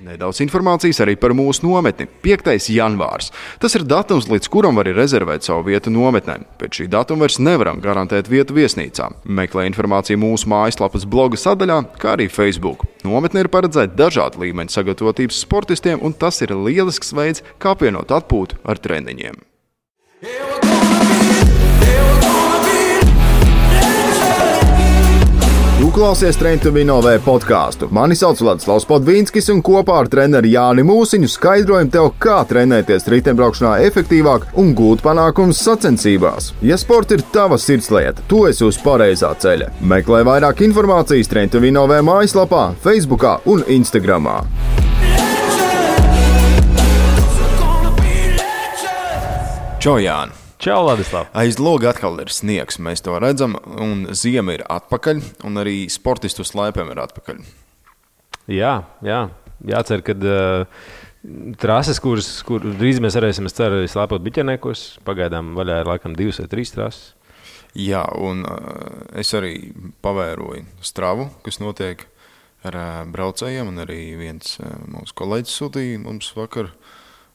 Nedaudz informācijas arī par mūsu nometni – 5. janvārs. Tas ir datums, līdz kuram var rezervēt savu vietu nometnē. Pēc šī datuma vairs nevaram garantēt vietu viesnīcā. Meklē informāciju mūsu mājaslapas bloga sadaļā, kā arī Facebook. Nometne ir paredzēta dažādu līmeņu sagatavotības sportistiem, un tas ir lielisks veids, kā apvienot atpūtu ar treniņiem. Tu klausies Train to Win OV podkāstu. Mani sauc Vladislavs Podvīnskis, un kopā ar treneri Jāni Mūsiņu skaidrojam tev, kā trenēties riteņbraukšanā efektīvāk un gūt panākumus sacensībās. Ja sports ir tava sirdslieta, tu esi uz pareizā ceļa. Meklē vairāk informācijas Train to Win OV mājaslapā, Facebookā un Instagramā. Čau, Jāni! Čau, Ladislav! Aiz loga atkal ir sniegs, mēs to redzam, un ziema ir atpakaļ, un arī sportistu slēpēm ir atpakaļ. Jā. Jācer, ka trases, kur drīz mēs varēsim, es ceru, slēpot biķerniekos, pagaidām vaļā ir laikam 2 vai 3 trases. Jā, un es arī pavēroju stravu, kas notiek ar braucējiem, un arī viens mūsu kolēģis sūtīja mums vakar,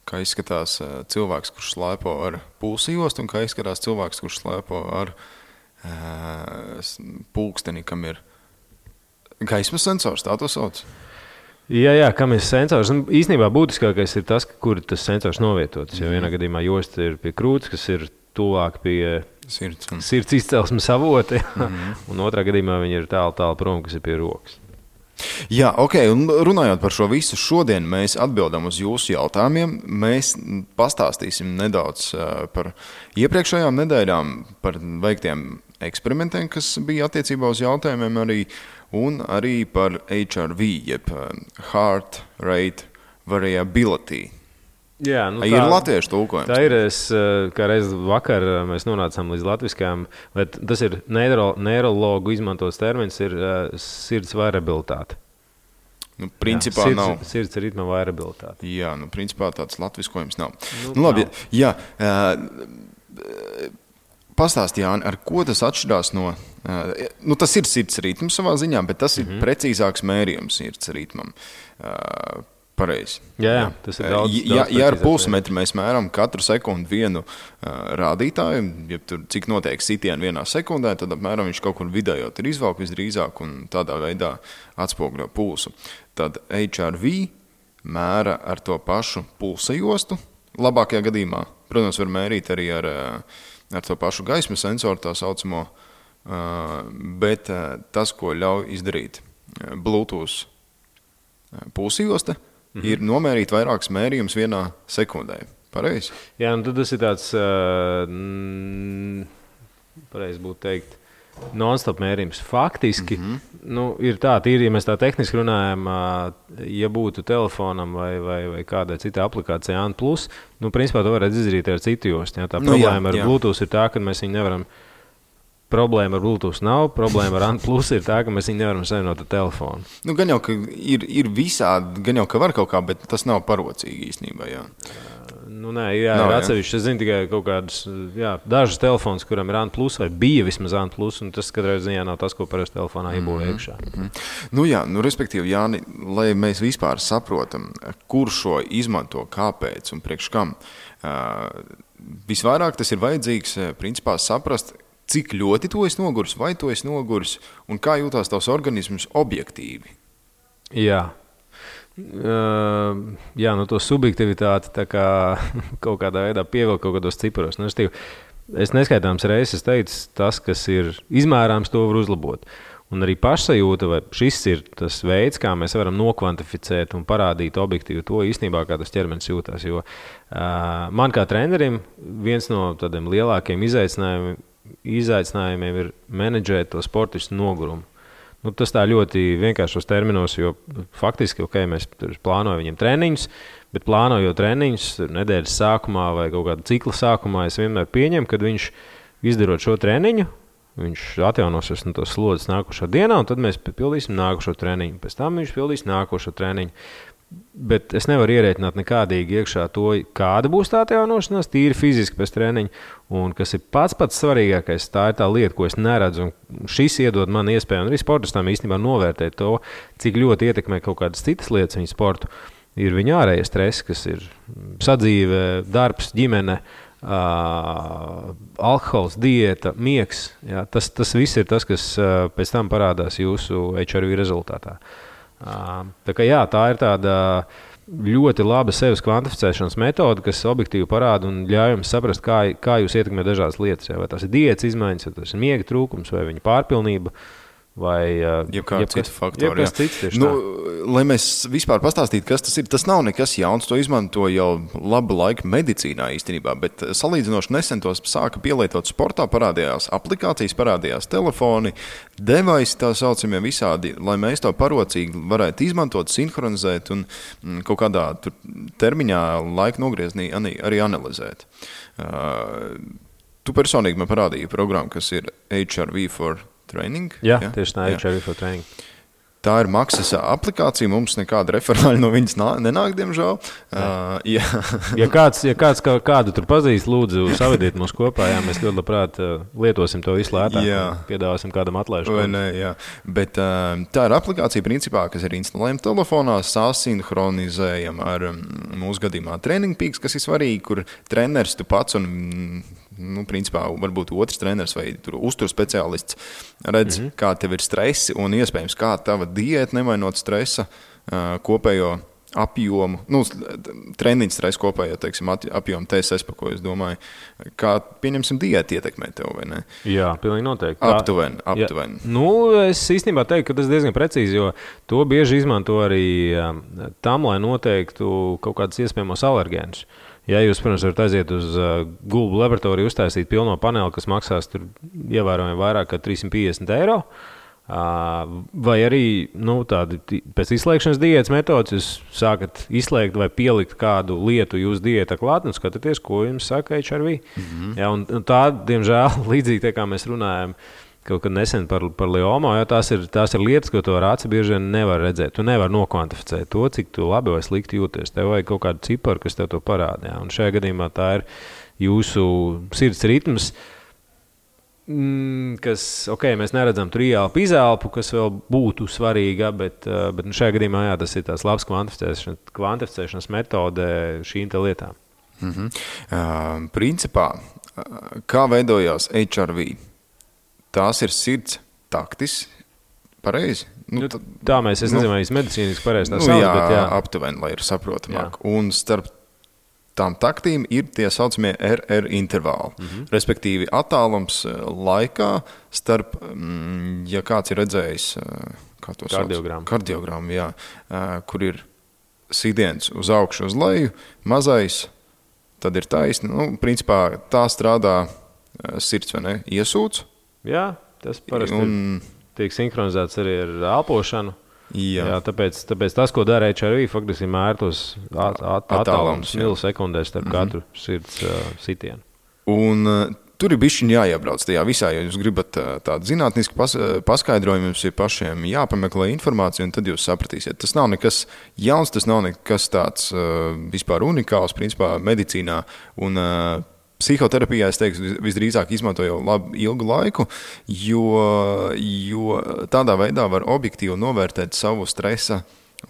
kā izskatās cilvēks, kurš slēpo ar pulsjostu, un kā izskatās cilvēks, kurš slēpo ar pulksteni, kam ir gaismas sensors, tā to sauc? Jā, kam ir sensors. Īstenībā būtiskākais ir tas, kur tas sensors novietots. Jo vienā gadījumā josta ir pie krūts, kas ir tuvāk pie sirds izcelsmes avota, un otrā gadījumā viņi ir tālu prom, kas ir pie rokas. Jā, ok, un runājot par šo visu, šodien mēs atbildam uz jūsu jautājumiem. Mēs pastāstīsim nedaudz par iepriekšējām nedēļām, par veiktiem eksperimentiem, kas bija attiecībā uz jautājumiem arī, un arī par HRV, jeb Heart Rate Variability. Jā, ir latviešu tulkojums. Tā ir, kā reiz vakar mēs nonācām līdz latviskajām, bet tas ir neirologu izmantots termins, ir sirds variabilitāte. Principā nav. Sirds ritma variabilitāte. Jā, principā tāds latviskojums nav. Labi, jā. Pastāsti, Jāni, ar ko tas atšķirās no... tas ir sirds ritms savā ziņā, bet tas ir precīzāks mērījums sirds ritmam. Pareizi. Jā, tas ir daudz ja ar pulsmetru mēs mēram katru sekundi vienu rādītāju, ja tur cik notiek sitieni vienā sekundē, tad apmēram viņš kaut kur vidējot ir izvalk visdrīzāk un tādā veidā atspoguļo pulsu. Tad HRV mēra ar to pašu pulsa jostu, labākajā gadījumā. Protams, var mērīt arī ar to pašu gaismas sensoru, tā saucamo, bet tas, ko ļauj izdarīt Bluetooth pulsa josta, ir nomērīt vairākas mērījumus vienā sekundē. Pareizi? Jā, tad tas ir tāds, pareizi būtu teikt, non-stop mērījums. Faktiski, ir tā, ja mēs tā tehniski runājam, ja būtu telefonam vai kādai citai aplikācijai ANT+, principā to varētu izdarīt ar citu jostu. Tā problēma ar Bluetooth ir tā, ka mēs viņu nevaram. Problēma ar Bluetooth nav, problēma ar ANT+ ir tā, ka mēs viņu nevaram savienot ar telefonu. Gan jau, ka ir visādi, gan jau, ka var kaut kā, bet tas nav parocīgi īstenībā, jā. Ir atsevišķi. Es zinu tikai kaut kādus, dažus telefons, kuram ir ANT+, vai bija vismaz ANT+, un tas katrā ziņā nav tas, ko parasti telefonā iebūvē iekšā. Respektīvi, Jāni, lai mēs vispār saprotam, kur šo izmanto, kāpēc un priekš kam, visvairāk tas ir vajadzīgs, principā, saprast, cik ļoti tu esi noguris, vai tu esi noguris, un kā jūtās tavs organisms objektīvi? Jā. To subjektivitāti tā kā kaut kādā veidā pievilkt kaut kādos ciparos. Es neskaitāms reizes teicu, tas, kas ir izmērāms, to var uzlabot. Un arī pašsajūta, vai šis ir tas veids, kā mēs varam nokvantificēt un parādīt objektīvi to īstenībā, kā tas ķermenis jūtās. Jo man kā trenerim viens no tādiem lielākiem izaicinājumiem ir menedžēt to sportistu nogurumu. Tas tā ļoti vienkāršos terminos, jo faktiski, mēs plānojam viņiem treniņus, bet plānojot treniņus nedēļas sākumā vai kaut kāda cikla sākumā, es vienmēr pieņemu, kad viņš izdarot šo treniņu, viņš atjaunosies no tos slodzes nākošo dienā, un tad mēs pildīsim nākošo treniņu. Pēc tam viņš pildīs nākošo treniņu. Bet es nevaru ierēķināt nekādīgi iekšā to, kāda būs tā atjaunošanās, tīri fiziski pēc treniņa. Un kas ir pats svarīgākais, tā ir tā lieta, ko es neredzu. Un šis iedod man iespēju, un arī sportistam īstenībā novērtēt to, cik ļoti ietekmē kaut kādas citas lietas viņa sportu. ir viņa ārējie stresi, kas ir sadzīve, darbs, ģimene, alkohols, diēta, miegs. Jā, tas viss ir tas, kas pēc tam parādās jūsu HRV rezultātā. Tā kā jā, tā ir tāda ļoti laba sevis kvantificēšanas metode, kas objektīvi parāda un ļauj jums saprast, kā jūs ietekmē dažādas lietas. Jā, vai tas ir diētas izmaiņas, vai tas ir miega trūkums, vai viņa pārpilnība. Vai jebkāds cits faktori. Lai mēs vispār pastāstītu, kas tas ir, tas nav nekas jauns. To izmanto jau labu laiku medicīnā īstenībā, bet salīdzinoši nesen tos sāka pielietot sportā, parādījās aplikācijas, parādījās telefoni, device tā saucamie visādi, lai mēs to parocīgi varētu izmantot, sinhronizēt un kaut kādā termiņā laika nogrieznī arī analizēt. Tu personīgi man parādīji programmu, kas ir HRV for Training. Jā, tieši tā, HRV for Training. Tā ir maksas aplikācija, mums nekāda referāļa no viņas nenāk, diemžēl. Ja kāds kādu tur pazīst, lūdzu, savediet mūs kopā, jā, mēs ļoti labprāt lietosim to visu lētāk, piedāvāsim kādam atlaižu. Bet tā ir aplikācija, principā, kas ir instalējama telefonā, sasinhronizējama ar mūsu gadījumā Training Peaks, kas ir svarīgi, kur treneris tu pats un principā, varbūt otrs treneris vai uzturu speciālists redz, kā tev ir stresi un iespējams, kā tava diēta nemainot stresa kopējo apjomu, treniņu stresu kopējo, teiksim, apjomu TSS, pa ko es domāju, kā, pieņemsim, diēta ietekmē tev, vai ne? Jā, pilnīgi noteikti. Aptuveni. Es īstenībā teiktu, ka tas diezgan precīzi, jo to bieži izmanto arī tam, lai noteiktu kaut kādus iespējamos alergēnus. Ja jūs, protams, varat aiziet uz Google laboratoriju, uztaisīt pilno paneli, kas maksās tur ievērojami vairāk kā 350 €, vai arī tādi pēc izslēgšanas diētas metodas jūs sākat izslēgt vai pielikt kādu lietu jūsu diētā klāt un skatāties, ko jums saka HRV. Ja, un tā, diemžēl, līdzīgi kā mēs runājam kaut kad nesen par liomā, jo tās ir lietas, ko to ar aci bieži vien nevar redzēt. Tu nevar nokvantificēt to, cik tu labi vai slikti jūties. Tev vajag kaut kādu ciparu, kas tev to parāda. Ja? Un šajā gadījumā tā ir jūsu sirds ritms, kas, mēs neredzam tur ieelpu, izelpu, kas vēl būtu svarīga, bet šajā gadījumā tas ir tās labs kvantificēšanas metode šīm te lietām. Principā, kā veidojās HRV? Tās ir sirds taktis, pareizi? Tā mēs, es nezinu, vai es medicīniski pareizi tā sauc, bet jā. Aptuveni, lai ir saprotamāk. Un starp tām taktīm ir tie saucamie RR intervāli, respektīvi attālums laikā starp, ja kāds ir redzējis, kā to sauc? Kardiogramu, jā, kur ir sidiens uz augšu, uz leju, mazais, tad ir taisni. Principā tā strādā sirds, vai ne? Iesūc. Jā, tas parasti tiek sinhronizēts arī ar elpošanu. Jā, tāpēc tas, ko dara HRV, faktiski mēr tos attālums milisekundēs starp katru sirds sitienu. Un tur ir bišķiņ jāiebrauc tajā visā, ja jūs gribat tādu zinātnisku paskaidrojumu, jums ir pašiem jāpameklē informāciju, un tad jūs sapratīsiet. Tas nav nekas jauns, tas nav nekas tāds vispār unikāls, principā medicīnā, un psihoterapijā, es teiktu, visdrīzāk izmanto jau ilgu laiku, jo tādā veidā var objektīvi novērtēt savu stresa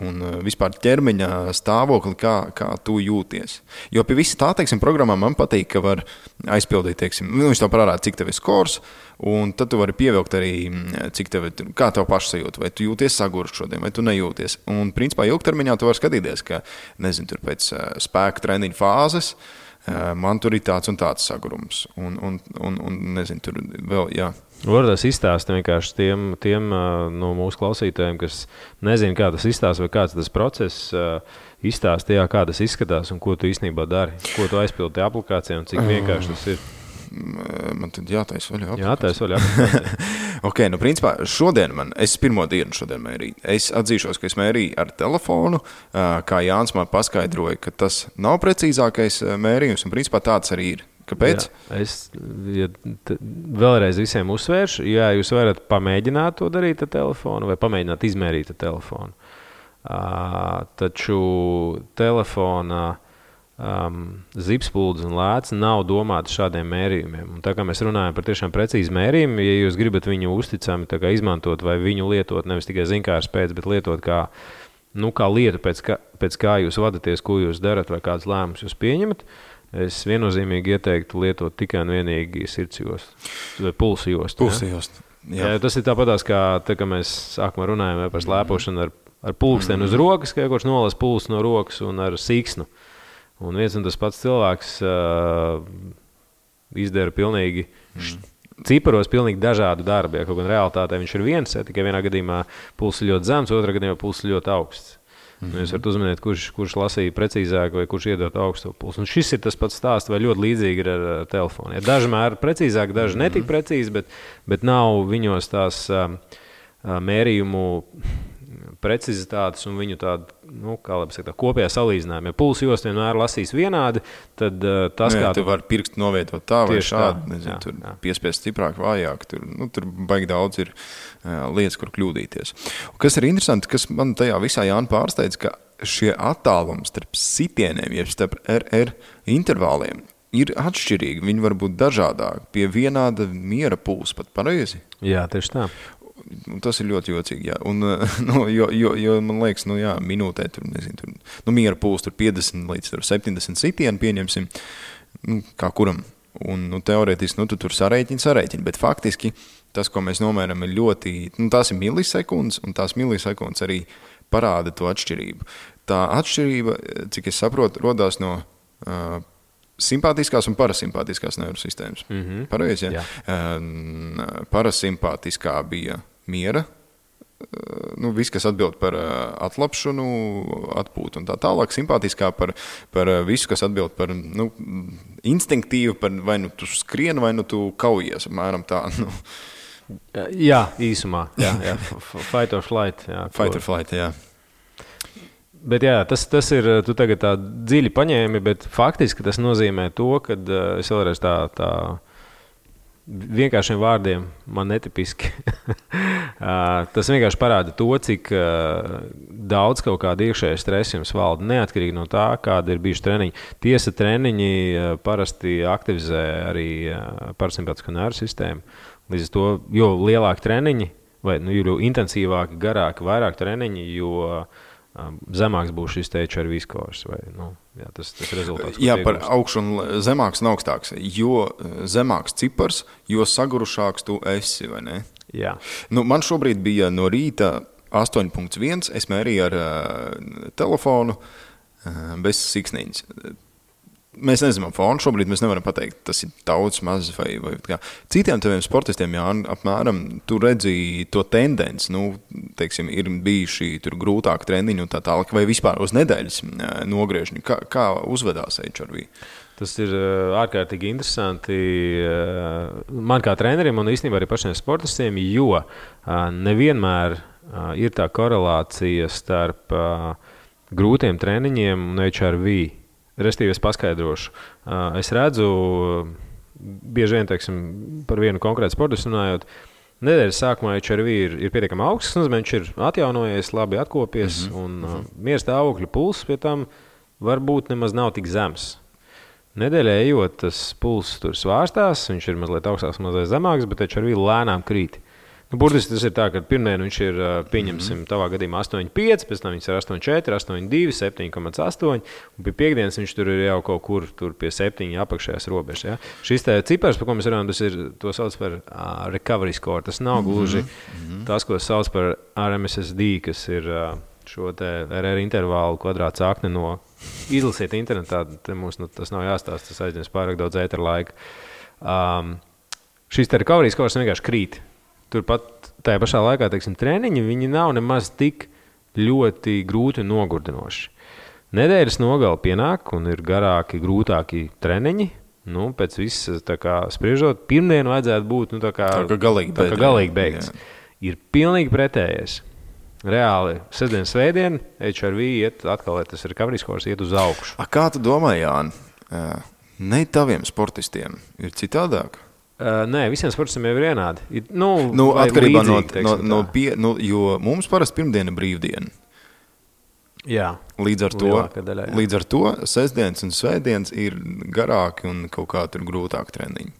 un vispār ķermeņa stāvokli, kā tu jūties. Jo pie visa tā, teiksim, programmā man patīk, ka var aizpildīt, teiksim, viņš tev parāda, cik tev ir skors, un tad tu vari pievilkt arī, kā tev pašsajūta, vai tu jūties sagurst šodien, vai tu nejūties. Un, principā, ilgtermiņā tu vari skatīties, ka, nezinu, tur pēc spēka treniņa fāzes, man tur ir tāds un tāds sagurums. Un nezinu, tur vēl, jā. Varbūt izstāst vienkārši tiem no mūsu klausītājiem, kas nezina, kā tas izstāst vai kāds tas process izstāst, kā tas izskatās un ko tu īstenībā dari, ko tu aizpildi tajā aplikācijā un cik vienkārši tas ir. Man tad jātais vaļā aplikācija. Jātais vaļā aplikācija. Principā šodien es pirmo dienu šodien mērīju. Es atzīšos, ka es mērīju ar telefonu, kā Jānis man paskaidroja, ka tas nav precīzākais mērījums, un principā tāds arī ir. Kāpēc? Jā, es vēlreiz visiem uzsvēršu, jūs varat pamēģināt to darīt ar telefonu vai pamēģināt izmērīt ar telefonu. Taču telefona zipspuldis un lēts nav domāti šādiem mērījumiem. Un tā kā mēs runājam par tiešām precīzu mērījumu, ja jūs gribat viņu uzticami izmantot vai viņu lietot, nevis tikai zinkārs pēc, bet lietot kā kā lieta, pēc kā jūs vadaties, ko jūs darat vai kādas lēmumus jūs pieņemat, es viennozīmīgi ieteiktu lietot tikai un vienīgi sirds jostu vai pulsa jostu. Pulsa jostu. Jā, tas ir tāpatās, kā mēs sākumā runājam par slēpošanu ar pulksteni uz rokas, ka kurš nolas pulsu no rokas un ar siksnu. Un viens un tas pats cilvēks izdara pilnīgi ciparos pilnīgi dažādu darbu. Ja, kaut gan realitātē viņš ir viens, tikai vienā gadījumā pulss ir ļoti zems, otrā gadījumā pulss ir ļoti augsts. Jūs varat uzmanīt, kurš lasīja precīzāk vai kurš iedot augstu pulsu. Un šis ir tas pats stāsts, vai ļoti līdzīgi ir ar telefonu. Ja, daži mēri precīzāk, daži netik precīzi, bet nav viņos tās mērījumu precizitātes un viņu tādu, kopējā salīdzinājuma. Ja pulsu jostu vienmēr lasīs vienādi, tad tas, kā tu vari pirkstu novietot tā vai šādi, nezinu, tur piespiest stiprāk, vājāk, tur baigi daudz ir lietas, kur kļūdīties. Un kas ir interesanti, kas man tajā visā Jāna pārsteidz, ka šie attālumi starp sitieniem, jeb starp RR intervāliem, ir atšķirīgi, viņi var būt dažādāki, pie vienāda miera pulsa pat pareizi. Jā, tieši tā. Un tas ir ļoti jocīgi, jā. Un, jo man liekas, minūtē tur, nezinu, miera pulss tur 50 līdz 70 sitienu pieņemsim, kā kuram. Un, teorētiski, tu tur sarēķini, bet faktiski tas, ko mēs nomēram, ir ļoti, tās ir milisekundes, un tās milisekundes arī parāda to atšķirību. Tā atšķirība, cik es saprotu, rodās no simpātiskās un parasimpātiskās neirosistēmas. Pareizi, ja? Parasimpātiskā bija miera, viss, kas atbild par atlapšanu, atpūtu un tā tālāk. Simpātiskā par visu, kas atbild par instinktīvu, par vai tu skrien, vai tu kaujies, apmēram tā. Jā, īsumā. Jā. Fight or flight. Jā, Fight or flight, jā. Bet jā, tas ir, tu tagad tā dziļi paņēmi, bet faktiski tas nozīmē to, ka es vēlreiz tā vienkāršiem vārdiem man netipiski. Tas vienkārši parāda to, cik daudz kaut kāda iekšēja stresa jums valda, neatkarīgi no tā, kāda ir bijuši treniņi. Tiesa, treniņi parasti aktivizē arī parasimpātisko nervu sistēmu. Līdz ar to, jo lielāki treniņi, vai jo intensīvāki, garāki, vairāk treniņi, jo zemāks būs šis HRV skors. Tas rezultāts. Jā, par augšu un zemāks un augstāks. Jo zemāks cipars, jo sagurušāks tu esi, vai ne? Jā. Man šobrīd bija no rīta 8.1, es mērīju ar telefonu bez siksniņas. Mēs nezinām fonu, šobrīd mēs nevaram pateikt, tas ir daudz, maz vai kā. Citiem taviem sportistiem, jā, apmēram, tu redzi to tendenci, teiksim, ir bijuši tur grūtāk treniņi un tā tālāk, vai vispār uz nedēļas nogriežņi. Kā uzvedās HRV? Tas ir ārkārtīgi interesanti man kā trenerim un īstenībā arī pašiem sportistiem, jo nevienmēr ir tā korelācija starp grūtiem treniņiem un HRV. Restīvi es paskaidrošu. Es redzu, bieži vien, teiksim, par vienu konkrētu sportistu runājot, nedēļas sākumā HRV ir pietiekami augsts, viņš ir atjaunojies, labi atkopies, un miera stāvokļa pulss pie tam varbūt nemaz nav tik zems. Nedēļā ejot, tas pulss tur svārstās, viņš ir mazliet augstāks, mazliet zemāks, bet HRV lēnām krīt. Burtiski tas ir tā, ka pirmdien viņš ir, pieņemsim, tavā gadījumā 8,5, pēc tam viņš ir 8,4, 8,2, 7,8, un pie piekdienas viņš tur ir jau kaut kur tur pie 7 apakšējās robežas. Ja? Šis te cipars, par ko mēs runājam, tas ir, to sauc par recovery score. Tas nav gluži tas, ko sauc par RMSSD, kas ir šo te RR intervālu kvadrāts akne no izlasiet internetā, te mums tas nav jāstāst, tas aizņems pārāk daudz ētera laika. Šis te recovery score vienkārši krīt. Turpat tajā pašā laikā, teiksim, treniņi, viņi nav nemaz tik ļoti grūti un nogurdinoši. Nedēļas nogali pienāk un ir garāki, grūtāki treniņi. Pēc visas, tā kā spriežot, pirmdienu vajadzētu būt, tā kā galīgi beigts. Ir pilnīgi pretējais. Reāli, sestdien, svētdien, HRV iet atkal, tas recovery scores iet uz augšu. Kā tu domā, Jāni, ne taviem sportistiem ir citādāk? Nē, visiem sportistiem jau ir vienādi. Atkarībā jo mums parasti pirmdiena brīvdiena. Jā. Līdz ar to sestdienas un svētdienas ir garāki un kaut kā tur grūtāk treniņi.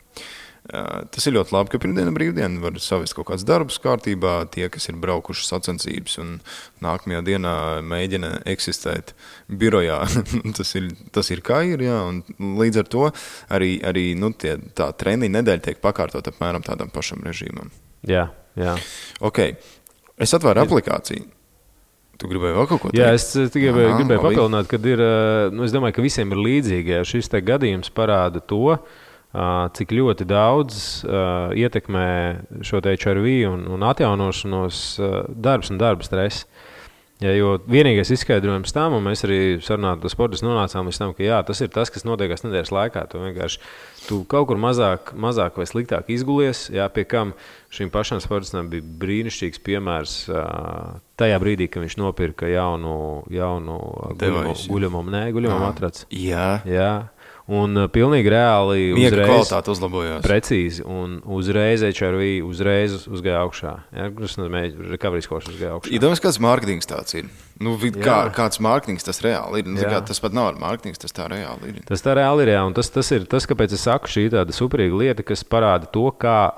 Tas ir ļoti labi, ka pirmdiena brīvdiena var savest kaut kāds darbs kārtībā. Tie, kas ir braukuši sacensības un nākamajā dienā mēģina eksistēt birojā, tas ir kā ir, jā. Un līdz ar to arī tā treniņa nedēļa tiek pakārtot apmēram tādam pašam režīmam. Jā. Ok, es atvēru aplikāciju. Tu gribēji vēl kaut ko teikt? Jā, es gribēju papildināt, kad ir, es domāju, ka visiem ir līdzīgi, ja šis te gadījums parāda to, cik ļoti daudz ietekmē šo te HRV un atjaunošanos darbs un darba stress. Ja, jo vienīgais izskaidrojums tam, un mēs arī sarunājot ar sportistus nonācām līdz tam, ka jā, tas ir tas, kas notiekās nedēļas laikā. Tu kaut kur mazāk vai sliktāk izgulies, jā, pie kam šim pašam sportistam bija brīnišķīgs piemērs tajā brīdī, kad viņš nopirka jaunu guļamo matraci. Jā. Un pilnīgi reāli miega kvalitāte uzlabojās. Precīzi. Un uzreiz HRV uzgāja augšā. Ja, tas nozīmē, recovery scores uzgāja augšā. Iedomājies, kāds mārketings tāds ir. Kāds mārketings tas reāli ir. Tas pat nav ar mārketings, tas tā reāli ir. Tas tā reāli ir, jā. Un tas ir tas, kāpēc es saku, šī tāda superīga lieta, kas parāda to, kā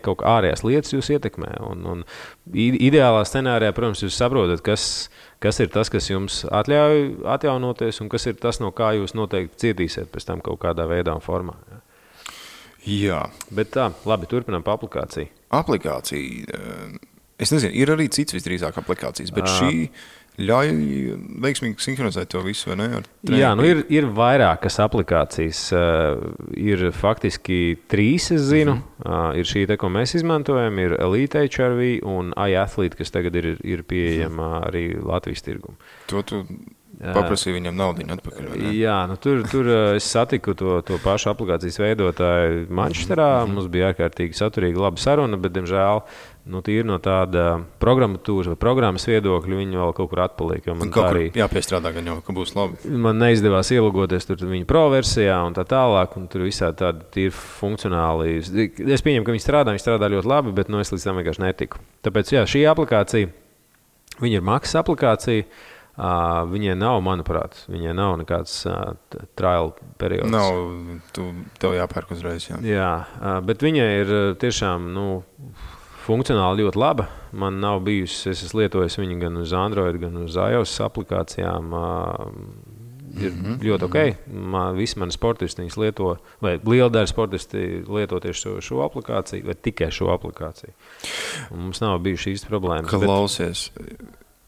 kaut kā ārējās lietas jūs ietekmē. Un ideālā scenārijā, protams, jūs saprotat, kas ir tas, kas jums atļauj atjaunoties, un kas ir tas, no kā jūs noteikti cietīsiet pēc tam kaut kādā veidā un formā. Jā. Bet tā, labi, turpinām pa aplikāciju. Aplikācija, es nezinu, ir arī cits visdrīzāk aplikācijas, bet šī ļauj veiksmīgi sinhronizēt to visu, vai ne? Jā, ir vairākas aplikācijas. Ir faktiski 3, es zinu. Ir šī, ko mēs izmantojam, ir Elite HRV un iAthlete, kas tagad ir pieejama arī Latvijas tirgumu. To tu paprasīja viņam naudiņu atpakaļ, vai ne? Jā, tur es satiku to pašu aplikācijas veidotāju Manchesterā. Mums bija ārkārtīgi saturīga laba saruna, bet, diemžēl, tīri no tāda programmatūras vai programmas viedokļa viņi vēl kaut kur atpaliek. Jāpiestrādā, gan jau, ka būs labi. Man neizdevās ielogoties tur viņa pro versijā un tā tālāk, un tur visādi tādi tīri funkcionāli. Es pieņemu, ka viņi strādā ļoti labi, bet es līdz tam vienkārši netiku. Tāpēc, jā, šī aplikācija, viņa ir maksas aplikācija. Viņai nav, manuprāt, nekāds trial periods. Tev jāpērk uzreiz, jā. Jā, bet viņai ir tiešām, funkcionāli ļoti laba. Man nav bijusi, es esmu lietojis viņu gan uz Android, gan uz iOS aplikācijām. Ir ļoti ok. Visi mani sportisti viņas lieto, vai liela daļa sportisti lieto tieši šo aplikāciju, vai tikai šo aplikāciju. Un mums nav bijuši īsti problēmas. Klausies.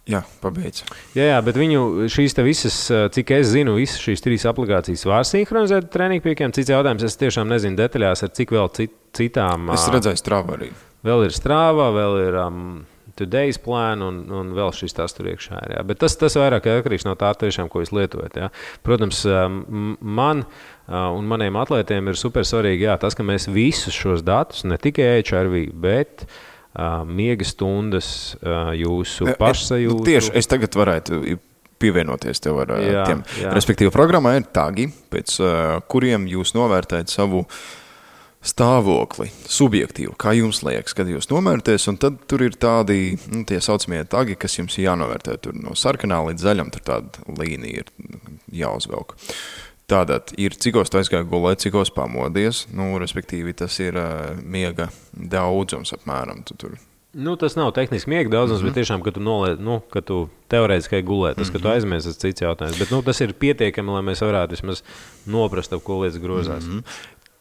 Jā, pabeidz. Jā, bet viņu šīs te visas, cik es zinu, visas šīs 3 aplikācijas var sinhronizēt treniņu piekiem. Cits jautājums, es tiešām nezinu detaļās, ar cik vēl citām. Es redzēju Strava arī. Vēl ir Strava, vēl ir Today's Plan un vēl šis tas tur iekšā ir. Jā. Bet tas vairāk atkarīgs no tā tiešām, ko jūs lietojat. Jā. Protams, man un maniem atlētiem ir super svarīgi tas, ka mēs visus šos datus, ne tikai HRV, bet miega stundas, jūsu pašsajūtu. Tieši es tagad varētu pievienoties tev ar tiem. Respektīvi, programmā ir tagi, pēc kuriem jūs novērtējat savu stāvokli, subjektīvu, kā jums liekas, kad jūs novērtēs, un tad tur ir tādi, tie saucamie tagi, kas jums jānovērtē. Tur no sarkanā līdz zaļam, tur tāda līnija ir jāuzvelk. Tātad ir, cikos tu aizgāji gulēt, cikos pamodies, respektīvi tas ir miega daudzums apmēram. Tas nav tehniski miega daudzums, bet tiešām, ka tu ka tu teorētiski gulēt, tas, ka tu aizmies, tas cits jautājums. Bet tas ir pietiekami, lai mēs varētu vismaz noprast, ap ko lietas grozās.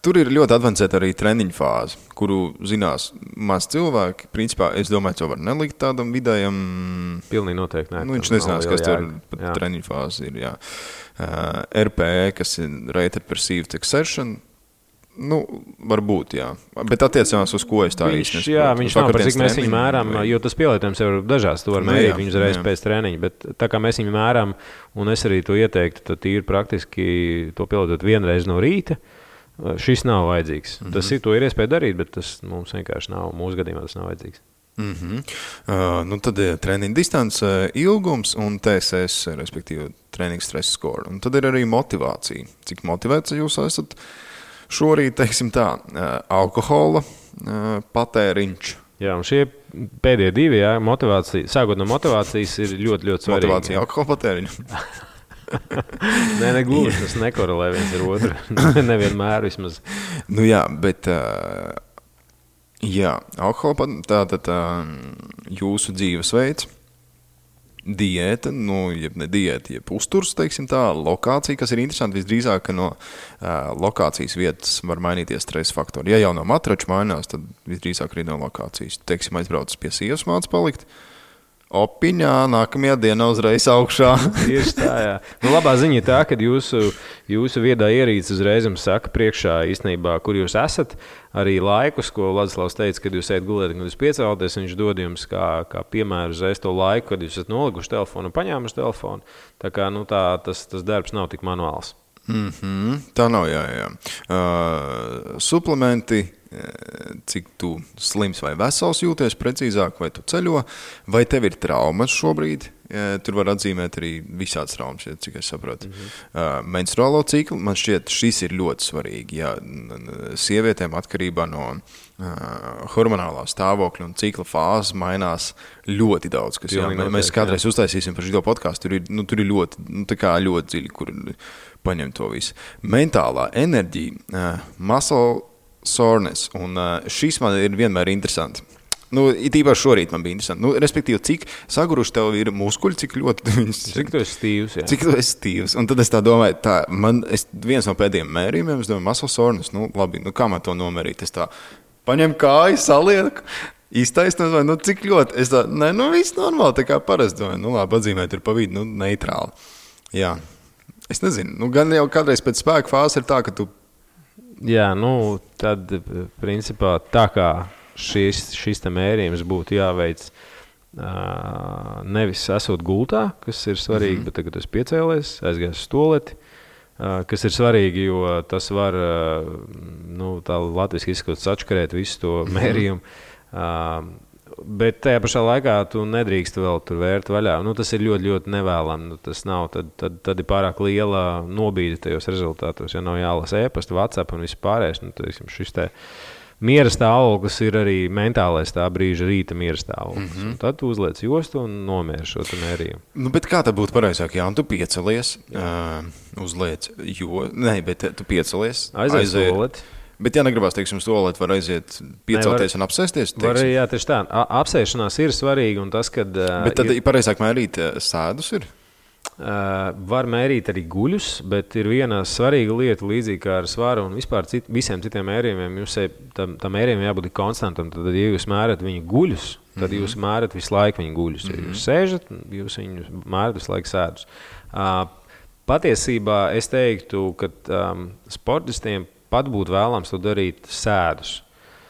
Tur ir ļoti advancēta arī treniņu fāze, kuru zinās maz cilvēki. Principā, es domāju, to var nelikt tādam vidējam. Pilnīgi noteikti. Viņš nezinās, kas tur treniņu fāze ir. Jā. RPE, kas ir Rated Perceived Exertion, varbūt, jā. Bet attiecībās uz ko es tā īsti nesaprotu. Jā, viņš nav par cik mēs viņu mēram, jo tas pielietojums jau ir dažās. Tu var mērīt viņu uzreiz pēc treniņa, bet tā kā mēs viņu mēram, un es arī to ieteiktu, tad ir praktiski to pielietot vienreiz no rīta. Šis nav vajadzīgs. To ir iespēja darīt, bet tas mums vienkārši nav. Mūsu gadījumā tas nav vajadzīgs. Tad ir treniņa distance, ilgums un TSS, respektīvi treniņa stress score. Un tad ir arī motivācija. Cik motivēts jūs esat šorīt, teiksim tā, alkohola patēriņš. Jā, un šie pēdējie 2, motivācija, sākot no motivācijas, ir ļoti, ļoti svarīgi. Motivācija alkohola patēriņu. Nē, negluži, tas nekorelē viens ar otru. Nevienmēr vismaz. Nu jā, bet alkohola tātad jūsu dzīvesveids, diēta, jeb ne diēta, jeb uzturs, teiksim tā, lokācija, kas ir interesanti, visdrīzāk, ka no lokācijas vietas var mainīties stresa faktori. Ja jau no matrača mainās, tad visdrīzāk arī no lokācijas. Teiksim, aizbraucis pie sievas māc palikt, opiņā, nākamajā dienā uzreiz augšā. Tieši tā, jā. Nu, labā ziņa tā, ka jūsu viedā ierīce uzreiz jums saka priekšā īstenībā, kur jūs esat, arī laikus, ko Ladislavs teica, kad jūs ejat gulēt, kad jūs piecēlaties, viņš dod jums kā piemēru uzreiz to laiku, kad jūs esat nolikuši telefonu un paņēmuši telefonu. Tā kā tas darbs nav tik manuāls. Tā nav, jā. Suplementi, cik tu slims vai vesels jūties precīzāk, vai tu ceļo, vai tev ir traumas šobrīd? Tur var atzīmēt arī visādas traumas, cik es saprotu. Menstruālo ciklu, man šķiet, šis ir ļoti svarīgi. Jā, sievietēm atkarībā no hormonālā stāvokļa un cikla fāzes mainās ļoti daudz. Kas, jā, mēs kādreiz uztaisīsim par šo podcastu, tur ir ļoti dziļi, kur paņem to visu. Mentālā enerģija, muscle soreness, un šis man ir vienmēr interesanti. It īpaši šorīt man bija interesanti. Respektīvi, cik saguruši tev ir muskuļi, cik ļoti... Cik tu esi stīvs, jā. Cik tu esi stīvs. Un tad es tā domāju, viens no pēdējiem mērījumiem, es domāju, muscle soreness, labi, kā man to nomērīt? Es tā paņem kāju, salieku, iztaisnu, cik ļoti? Es tā, viss normāli, tā kā parasti domāju, labi, atzīmēt ir pa vidu, neitrāli. Jā, es nezinu, gan jau kādreiz pēc spēka fāzes ir tā, ka tu... Jā, tad, principā, tā kā šis te mērījums būtu jāveic nevis esot gultā, kas ir svarīgi, bet tagad es piecēlies, aizgāju uz toleti, kas ir svarīgi, jo tas var, tā latviski izskot sačkarēt visu to mērījumu. Bet tajā pašā laikā tu nedrīkst vēl tur vērt vaļā. Tas ir ļoti, ļoti nevēlami. Tas nav, tad ir pārāk liela nobīde tajos rezultātos. Ja nav jālasa e-pasta, WhatsApp un viss pārējais, šis te miera stāvoklis ir arī mentālais tā brīža rīta miera stāvoklis. Tad tu uzliec jostu un nomieri šo mērījumu. Bet kā tad būtu pareizāk? Jā, un tu piecelies, uzliec bet tu piecelies, aiziet. Bet, ja negribās, teiksim, stolēt, var aiziet piecelties un apsēsties? Var, jā, tieši tā. Apsēšanās ir svarīga un tas, kad... Bet tad pareizāk mērīt sēdus ir? Var mērīt arī guļus, bet ir viena svarīga lieta līdzīgi kā ar svaru un vispār visiem citiem mērījumiem. Tam mērījumiem jābūt konstantam. Tad, ja jūs mērat viņu guļus, tad jūs mērat visu laiku viņu guļus. Ja jūs sēžat, jūs viņu mērat visu laiku sēdus. Patiesībā es teiktu, ka sportistiem pat būtu vēlams to darīt sēdus.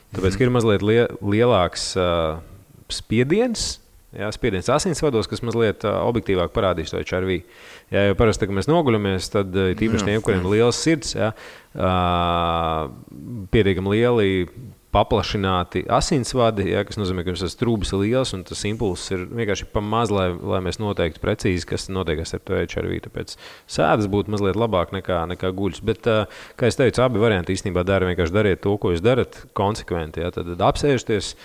Tāpēc, ka ir mazliet lielāks spiediens asinsvados, kas mazliet objektīvāk parādīs to HRV. Ja jau parasti, kad mēs noguļamies, tad tīpaši tiem, kuriem ir liels sirds, pietiekami lieli paplašināti asinsvadi, kas nozīmē, ka tas trūbis ir liels un tas impulss ir vienkārši pa maz, lai mēs noteikti precīzi, kas notiekās ar to HRV. Tāpēc sēdas būtu mazliet labāk nekā guļus. Bet, kā es teicu, abi varianti īstenībā vienkārši dariet to, ko jūs darat konsekventi. Ja? Tad apsēžties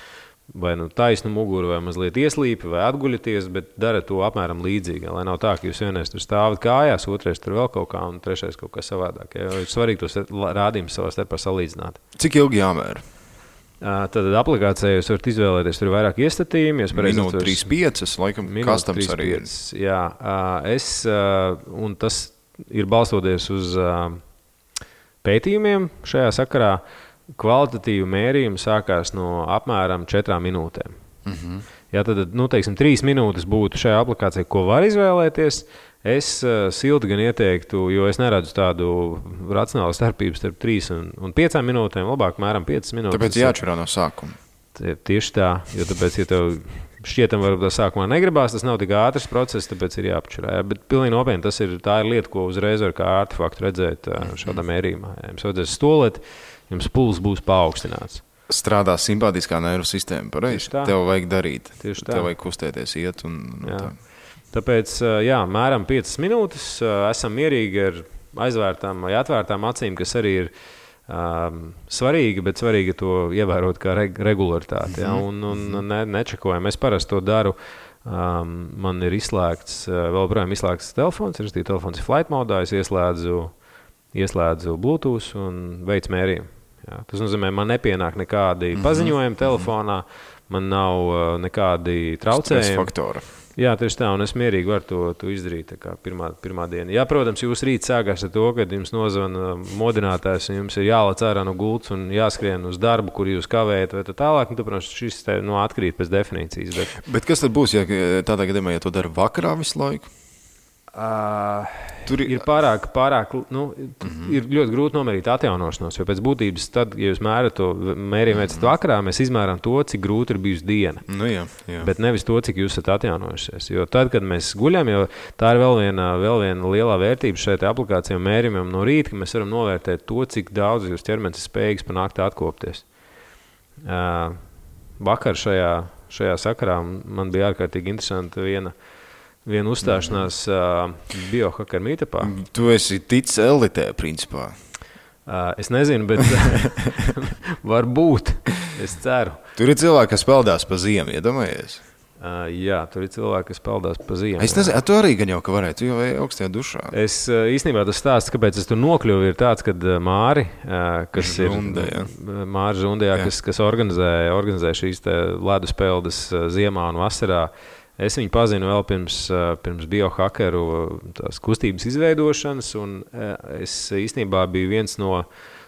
vai taisnu muguru, vai mazliet ieslīpi, vai atguļaties, bet darat to apmēram līdzīgi. Lai nav tā, ka jūs vienreiz tur stāvat kājās, otrais tur vēl kaut kā un trešais kaut kā savādāk. Ja? Ir svarīgi tos rādījumus savā starpā salīdzināt. Cik ilgi jāmēra? Tad aplikācijā jūs varat izvēlēties, tur ir vairāk iestatījumi. Minūte 3,5, laikam, kastams arī ir. Jā, un tas ir balstoties uz pētījumiem šajā sakarā. Kvalitatīvu mērījumu sākās no apmēram 4 minūtēm. Ja tad, 3 minūtes būtu šajā aplikācijā, ko var izvēlēties. Es silti gan ieteiktu, jo es neredzu tādu racionālu starpību starp 3 un 5 minūtēm, labāk mēram 5 minūtes. Tāpēc jāatšķirā no sākuma. Tieši tā, jo tāpēc, ja tev šķietam varbūt tā sākumā negribās, tas nav tik ātrs process, tāpēc ir jāapšķirā. Bet pilnīgi nopietni, tā ir lieta, ko uzreiz var kā artefaktu redzēt šādā mērījumā. Ja jums vajadzēs stolēt, jums pulss būs paaugstināts. Strādā simpātiskā nervu sistēma, pareizi? Tev vajag darīt. Tieši tā. Tev vajag kustēties, iet un tā. Tāpēc, mēram 5 minūtes, esam mierīgi ar aizvērtām vai atvērtām acīm, kas arī ir svarīgi, bet svarīgi to ievērot kā regularitāti. Ja? Un nečekojam. Es parasti to daru Man ir izslēgts, vēl projām izslēgts telefons, telefons ir flight modā, es ieslēdzu Bluetooth un veicu mērījumu. Jā, tas nozīmē, man nepienāk nekādi paziņojumi telefonā, man nav nekādi traucējumi. Stresa faktora. Jā, tieši tā, un es mierīgi varu to izdarīt tā kā pirmā diena. Jā, protams, jūs rīt sākās ar to, kad jums nozvana modinātājs, un jums ir jālec ārā no gultas un jāskrien uz darbu, kur jūs kavējat, vai tā tālāk. Nu, protams, šis atkrīt pēc definīcijas. Bet kas tad būs, ja tādā gadījumā, ja to dara vakarā visu laiku? Tur ir pārāk ir ļoti grūti nomērīt atjaunošanos, jo pēc būtības tad, ja jūs mērat to mērījumu veicat vakarā, mēs izmēram to, cik grūti ir bijusi diena. Nu, jā. Bet nevis to, cik jūs esat atjaunojušies. Jo tad, kad mēs guļam, jo tā ir vēl viena lielā vērtība šai aplikācijai un mērījumam no rīta, ka mēs varam novērtēt to, cik daudz jūs ķermenis ir spējīgs pa nakti atkopties. Vakar šajā sakarā man bija ārkārtīgi interesanti viena uzstāšanās biohackeru meetupā. Tu esi ticis elitē, principā. Es nezinu, bet varbūt. Es ceru. Tur ir cilvēki, kas peldās pa ziemu, iedomājies? Jā, tur ir cilvēki, kas peldās pa ziemu. Es nezinu, tu arī gan jau ka varētu, tu jau vai augstajā dušā. Es īstenībā tas stāsts, kāpēc es tur nokļuvu, ir tāds, kad Māri, kas Žunde, Māri Žundē, kas organizē šīs ledus peldes ziemā un vasarā. Es viņu pazinu vēl pirms biohackeru tās kustības izveidošanas, un es īstenībā biju viens no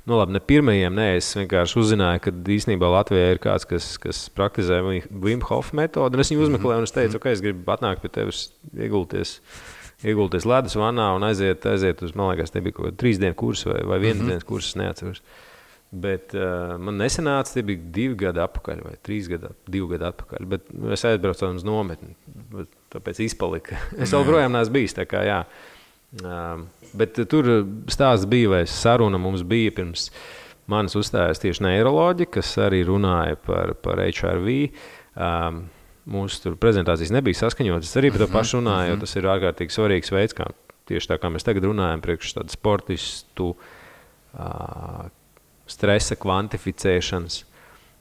ne pirmajiem, es vienkārši uzzināju, ka īstenībā Latvijā ir kāds, kas praktizē Wim Hof metodu, un es viņu uzmeklēju, un es teicu, ka es gribu atnākt pie tevis iegulties ledus vannā un aiziet uz, man liekas, te bija kaut 3 dienu kursu vai 1 dienas kursu, es neatceros. Bet man nesanāca, tie bija 2 gadi atpakaļ vai 2 gadi atpakaļ, bet es aizbraucu uz nometni, tāpēc izpalika. Es vēl projām neesmu bijis, tā kā jā. Bet tur stāsts bija, vai saruna mums bija pirms manis uzstājās tieši neiroloģi, kas arī runāja par HRV. Mūsu tur prezentācijas nebija saskaņotas, arī par to pašu runāju, jo tas ir ārkārtīgi svarīgs veids, kā tieši tā kā mēs tagad runājam priekš tādu sportistu stresa kvantificēšanas.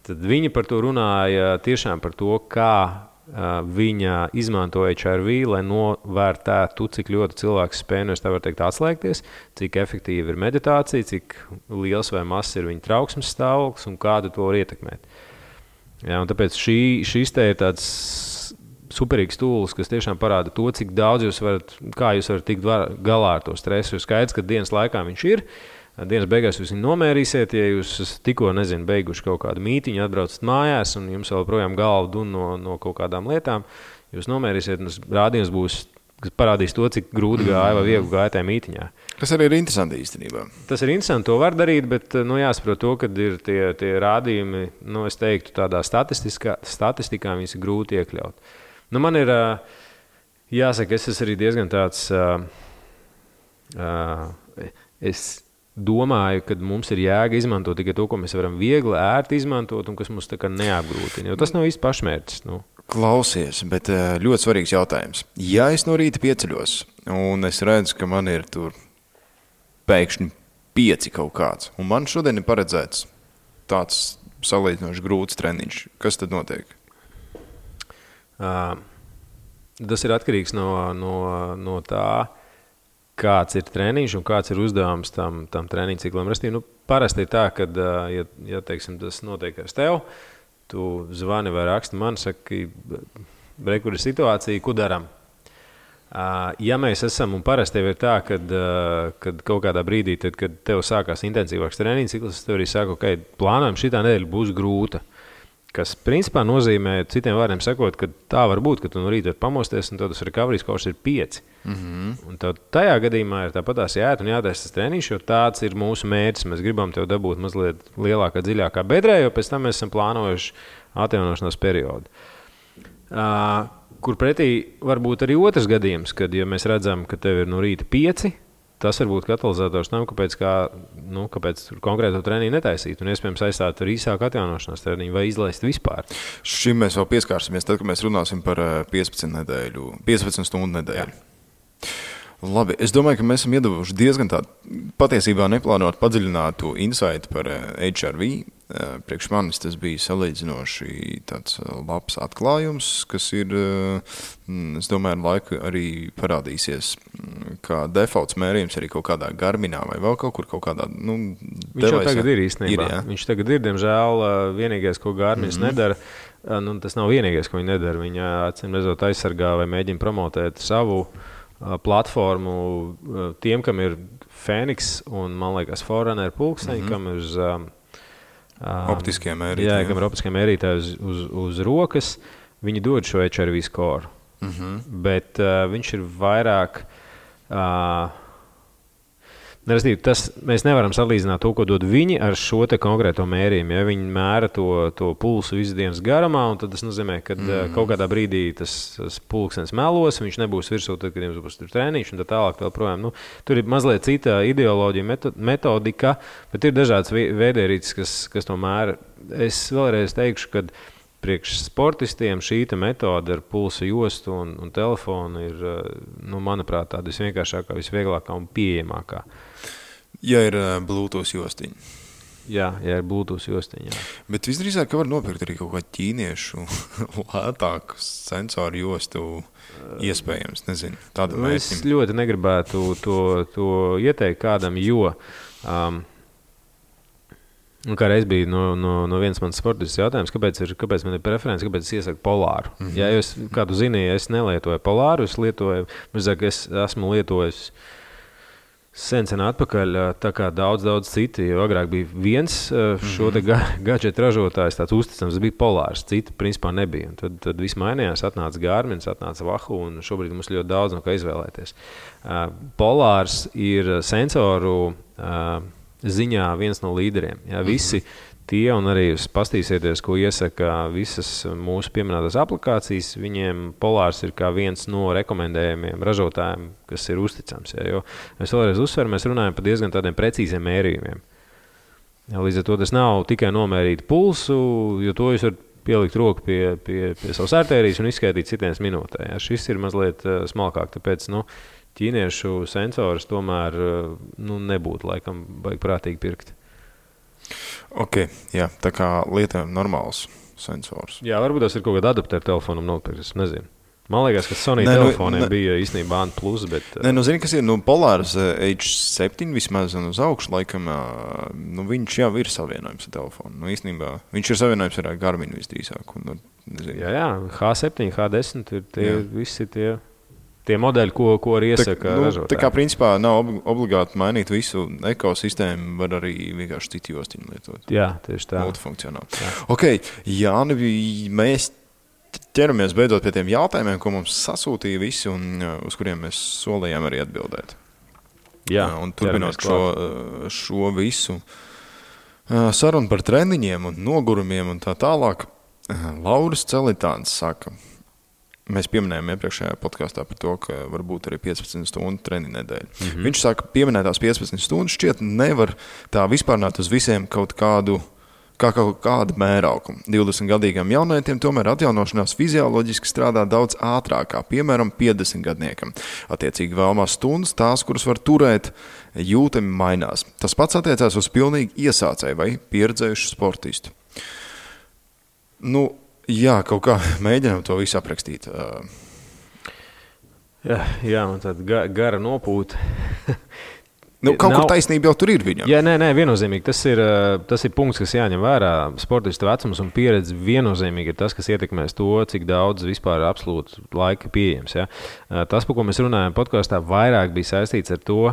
Tad viņi par to runāja tiešām par to, kā viņa izmanto HRV, lai novērtētu, cik ļoti cilvēks spēj, es tā varu teikt, atslēgties, cik efektīva ir meditācija, cik liels vai mazs ir viņa trauksmes stāvoklis un kādu to var ietekmēt. Jā, un tāpēc šis te ir tāds superīgs tūlis, kas tiešām parāda to, cik daudz kā jūs varat tikt galā ar to stresu. Ir skaidrs, ka dienas laikā viņš ir. Dienas beigās jūs viņu nomērīsiet, ja jūs tikko, beiguši kaut kādu mītiņu, atbraucat mājās un jums vēl projām galva dun no kaut kādām lietām, jūs nomērīsiet un rādījums būs, kas parādīs to, cik grūti gāja vai viegli gāja tajā mītiņā. Tas arī ir interesanti īstenībā. Tas ir interesanti, to var darīt, bet jāsaprot to, kad ir tie rādījumi, es teiktu, tādā statistikā viņas ir grūti iekļaut. Man ir, jāsaka, es esmu arī diezgan tāds, es domāju, ka mums ir jēga izmantot tikai to, ko mēs varam viegli, ērti izmantot un kas mums tā kā neapgrūtina, jo tas nav īsti pašmērķis. Klausies, bet ļoti svarīgs jautājums. Ja es no rīta pieceļos un es redzu, ka man ir tur pēkšņi 5 kaut kāds, un man šodien ir paredzēts tāds salīdzinoši grūts treniņš, kas tad notiek? Tas ir atkarīgs no tā, kāds ir treniņš un kāds ir uzdevums tam treniņu ciklam. Parasti ir tā, ka, ja teiksim, tas notiek ar tevi, tu zvani vai raksti man, saki, kur ir situācija, ko daram. Ja mēs esam, un parasti ir tā, kad kaut kādā brīdī, tad, kad tev sākās intensīvāks treniņu cikls, tev arī saka, ka plānojam šitā nedēļa būs grūta. Kas principā nozīmē, citiem vārdiem sakot, ka tā var būt, ka tu no rīta var pamosties un tad tas recovery scores ir 5. Un tad tajā gadījumā ir tāpatās jāiet un jātaisa tas treniņš, jo tāds ir mūsu mērķis. Mēs gribam tev dabūt mazliet lielākā, dziļākā bedrē, jo pēc tam mēs esam plānojuši atjaunošanās periodu. Kur pretī var būt arī otrs gadījums, kad ja mēs redzam, ka tev ir no rīta 5, tas var būt katalizators tam, kāpēc konkrēto treniņu netaisīt un iespējams aizstāt ar īsāku atjaunošanās treniņu vai izlaist vispār. Šim mēs vēl pieskārsimies, tad, kad mēs runāsim par 15 stundu nedēļu. Labi, es domāju, ka mēs esam iedavuši diezgan tādu patiesībā neplānotu padziļinātu insightu par HRV. priekš manis tas bija salīdzinoši tāds labs atklājums, kas ir, es domāju, ar laiku arī parādīsies, kā defaults mērījums arī kaut kādā Garminā vai vēl kaut kur kaut kādā, Viņš jau tagad ir īstenībā. Viņš tagad ir, diemžēl, vienīgais, ko Garmins nedara. Tas nav vienīgais, ko viņi nedara. Viņa acīm redzot aizsargā vai mēģina promotēt savu platformu tiem, kam ir Fēniks un, man liekas, Forerunner pulksteņi, kam ir uz optiskie mērītāji. Jā, kam ir optiskie mērītāji uz rokas. Viņi dod šo HRV score. Bet viņš ir vairāk... Mēs nevaram salīdzināt to, ko dod viņi ar šo te konkrēto mērījumu. Ja viņi mēra to pulsu visu dienas garumā, un tad tas nozīmē, ka kaut kādā brīdī tas pulkstenis melos, viņš nebūs virsū, tad, kad jums būs tur treniņš un tā tālāk vēl projām. Tur ir mazliet cita ideoloģija, metodika, bet ir dažādas veidierīces, kas to mēra. Es vēlreiz teikšu, ka priekš sportistiem šī metode ar pulsa jostu un telefonu ir, manuprāt, tāda visvienkāršākā, visvieglākā un pieejamākā. Ja ir Bluetooth jostiņa. Jā, ja ir Bluetooth jostiņa, jā. Bet visdrīzāk, ka var nopirkt arī kaut kā ķīniešu lētāku sensoru jostu iespējams, nezinu, tāda mērķim. Es ļoti negribētu to ieteikt kādam, jo... Kā reiz bija no vienas manas sportistas jautājums, kāpēc man ir preference, kāpēc es iesaku polāru. Ja jūs kādu zini, es nelietoju polāru, es esmu lietojis sen atpakaļ, tā kā daudz citi, jo agrāk bija viens šo te gadžetu ražotājs, tāds uzticams, bija polārs, citi principā nebija. Un tad viss mainījās, atnāca Garmins, atnāca Wahoo, un šobrīd mums ļoti daudz no kā izvēlēties. Polārs ir sensoru ziņā viens no līderiem. Ja, visi tie, un arī jūs pastīsieties, ko iesaka visas mūsu pieminētās aplikācijas, viņiem polārs ir kā viens no rekomendējumiem ražotājiem, kas ir uzticams. Ja, jo mēs vēlreiz uzsveram, mēs runājam par diezgan tādiem precīziem mērījumiem. Ja, līdz ar to tas nav tikai nomērīt pulsu, jo to jūs varat pielikt roku pie savas artērijas un izskaidīt citienas minūtē. Ja, šis ir mazliet smalkāk, tāpēc, ķīniešu sensors tomēr nebūtu laikam vajag prātīgi pirkt. Ok, jā, tā kā lietojam normāls sensors. Jā, varbūt tas ir kaut kāda adaptēra telefonam nopirkt, es nezinu. Man liekas, ka Sony telefoniem bija īstenībā A+, bet... zini, kas ir, Polārs H7 vismaz un uz augšu, laikam, viņš jau ir savienojums ar telefonu. Īstenībā, viņš ir savienojums ar Garminu visdrīzāk. Jā, H7, H10 ir visi tie modeļi, ko arī iesaka ražotāji. Tā kā principā nav obligāti mainīt visu ekosistēmu, var arī vienkārši citu jostiņu lietot. Jā, tieši tā. Multifunkcionāli. Ok, Jāni, mēs ķeramies beidzot pie tiem jautājumiem, ko mums sasūtīja visi un uz kuriem mēs solījām arī atbildēt. Jā, un turpinot šo visu sarunu par treniņiem un nogurumiem un tā tālāk, Lauris Celitāns saka, mēs pieminējām iepriekšējā podkastā par to, ka var būt arī 15 stundu treniņu nedēļa. Viņš saka, pieminētās 15 stundas šķiet nevar tā vispārnāt uz visiem kaut kādu mērauku. 20-gadīgam jaunietiem tomēr atjaunošanās fizioloģiski strādā daudz ātrākā, piemēram, 50-gadniekam. Attiecīgi vēlamās stundas, tās, kuras var turēt, jūtami mainās. Tas pats attiecās uz pilnīgi iesācēju vai pieredzējušu sportistu. Jā, kaut kā mēģinām to visu aprakstīt. Jā, man tāda gara nopūta. Kaut kur taisnība jau tur ir viņam. Jā, nē, viennozīmīgi. Tas ir punkts, kas jāņem vērā. Sportista vecums un pieredze viennozīmīgi ir tas, kas ietekmēs to, cik daudz vispār absolūti laika pieejams. Ja? Tas, par ko mēs runājam podkastā, vairāk bija saistīts ar to,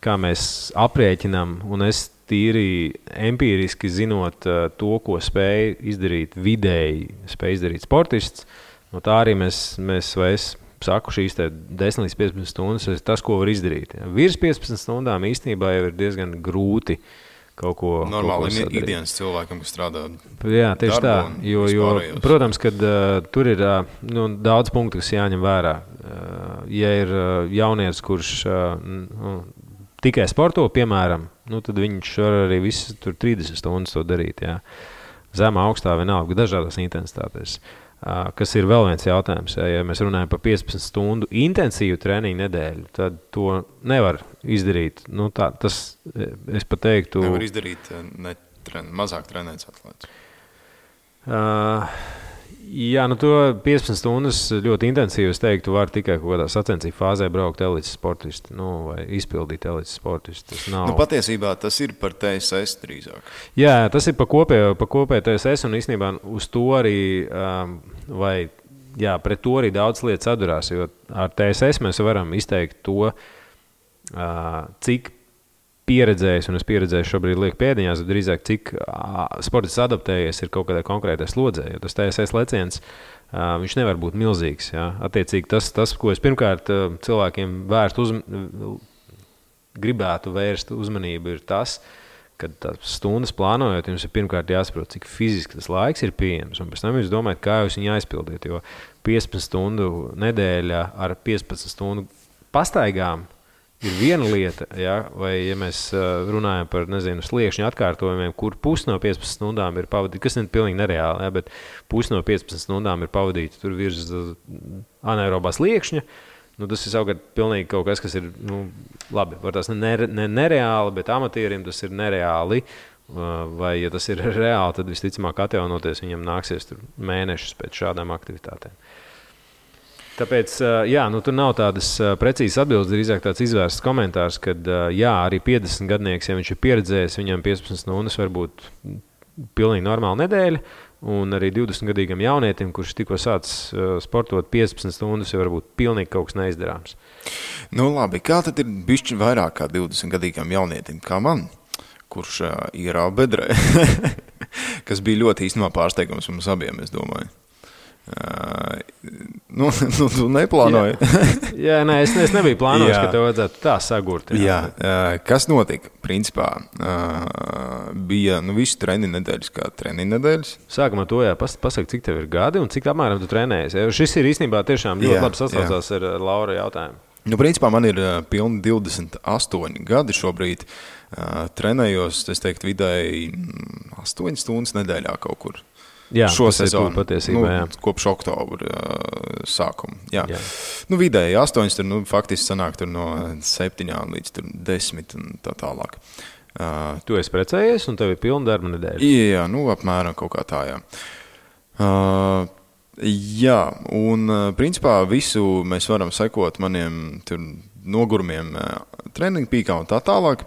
kā mēs aprēķinām, un es tīri empīriski zinot to, ko spēj izdarīt vidēji, spēj izdarīt sportists. No tā arī mēs saku, šīs 10 līdz 15 stundas ir tas, ko var izdarīt. Ja. Virs 15 stundām īstenībā jau ir diezgan grūti kaut ko normāli ikdienas cilvēkam, kas strādā. Jā, tieši tā. Jo, protams, kad tur ir daudz punktu, kas jāņem vērā. Ja ir jaunietis, kurš tikai sporto, piemēram, tad viņš var arī visu 30 stundas to darīt. Jā. Zemā, augstā, vienalga, dažādās intensitātēs. Kas ir vēl viens jautājums. Ja mēs runājam par 15 stundu intensīvu treniņu nedēļu, tad to nevar izdarīt. Es pat teiktu... Nevar izdarīt mazāk trenēts atlēts? Jā, nu to 15 stundas ļoti intensīvi, es teiktu, var tikai kaut kādā sacensību fāzē braukt elites sportisti, vai izpildīt elites sportisti. Patiesībā tas ir par TSS drīzāk. Jā, tas ir pa kopēju TSS, un īstenībā uz to arī, pret to arī daudz lietas atdurās, jo ar TSS mēs varam izteikt to, cik pieredzējis, un es pieredzēju šobrīd lieku pēdiņās, bet drīzāk cik sportists adaptējies ir kaut kādā konkrētā slodzē, jo tas TSS leciens, viņš nevar būt milzīgs. Jā. Attiecīgi tas, ko es pirmkārt cilvēkiem gribētu vērst uzmanību, ir tas, ka tās stundas plānojot, jums ir pirmkārt jāsaprot, cik fiziski tas laiks ir pieejams, un pēc tam jūs domājat, kā jūs viņu aizpildīt, jo 15 stundu nedēļā ar 15 stundu pastaigām ir viena lieta, ja? Vai ja mēs runājam par, sliekšņu atkārtojumiem, kur pusi no 15 stundām ir pavadīta, kas ir pilnīgi nereāli, ja? Bet pusi no 15 stundām ir pavadīta tur virs anaerobā sliekšņa, tas ir savukārt pilnīgi kaut kas, kas ir, labi, var tas nereāli, bet amatierim tas ir nereāli, vai ja tas ir reāli, tad visticamāk atjaunoties viņam nāksies tur mēnešus pēc šādām aktivitātēm. Tāpēc, tur nav tādas precīzas atbildes, drīzāk tāds izvērsts komentārs, kad, arī 50 gadnieks, ja viņš ir pieredzējis, viņam 15 stundas var būt pilnīgi normāla nedēļa, un arī 20-gadīgam jaunietim, kurš tikko sācis sportot 15 stundas, jau var būt pilnīgi kaut kas neizdarāms. Labi, kā tad ir bišķi vairāk kā 20-gadīgam jaunietim, kā man, kurš ierāva bedrē, kas bija ļoti īstenībā pārsteigums mums abiem, es domāju. Tu neplānoji. Es nebiju plānojis, ka tev vajadzētu tā sagurt. Kas notika? Principā bija visu treniņu nedēļas kā treniņu nedēļas. Sākumā to pasaka, cik tev ir gadi un cik apmēram tu trenējies. Šis ir īstenībā tiešām ļoti labi sasaucās ar Laura jautājumu. Principā man ir pilni 28 gadi šobrīd. Trenējos, es teiktu, vidēji 8 stundas nedēļā kaut kur. Jā, šo sezonu, patiesībā, kopš oktobra sākuma. Jā. Vidēji 8, tur, faktiski sanāk tur no 7 līdz 10 un tā tālāk. Tu esi precējies un tev ir pilna darba nedēļa? Jā, apmēram kaut kā tā, jā. Un principā visu mēs varam sekot maniem tur nogurumiem treniņu pīkā un tā tālāk.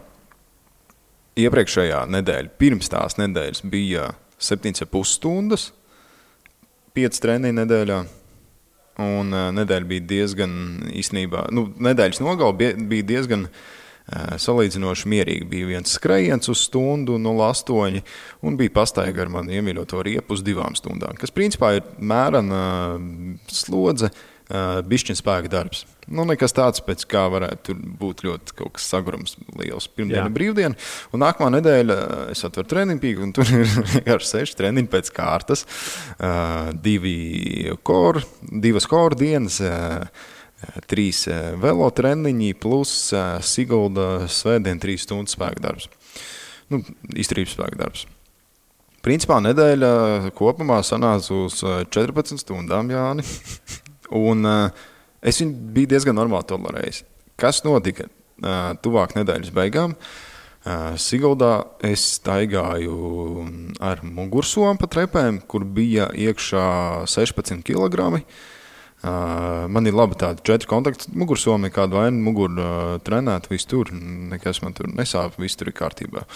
Iepriekšējā nedēļa, pirms tās nedēļas bija 7,5 stundas, 5 treniņu nedēļā, un nedēļa bija diezgan īstenībā, nedēļas nogala bija diezgan salīdzinoši mierīgi. Bija viens skrējiens uz stundu 0,8 un bija pastaiga ar mani iemīļoto riepu uz 2 stundām, kas principā ir mērena slodze, bišķiņ spēka darbs. Nekas tāds, pēc kā varētu būt ļoti kaut kas sagurums liels. Pirmdiena brīvdiena, un nākamā nedēļa es atveru treniņu pīku, un tur ir 6 treniņi pēc kārtas, 2 core dienas, 3 velo treniņi plus Sigulda svētdien 3 stundu spēka darbs. Izturības spēka darbs. Principā nedēļa kopumā sanāca uz 14 stundām, Jāni. Un es viņu biju diezgan normāli tolerējis. Kas notika tuvāk nedēļas beigām? Siguldā es staigāju ar mugursomu pa trepēm, kur bija iekšā 16 kg. Man ir labi tādi 4 kontakti mugursomi, kādu vainu muguru trenēt, viss tur, nekas man tur nesāp, viss tur ir kārtībā.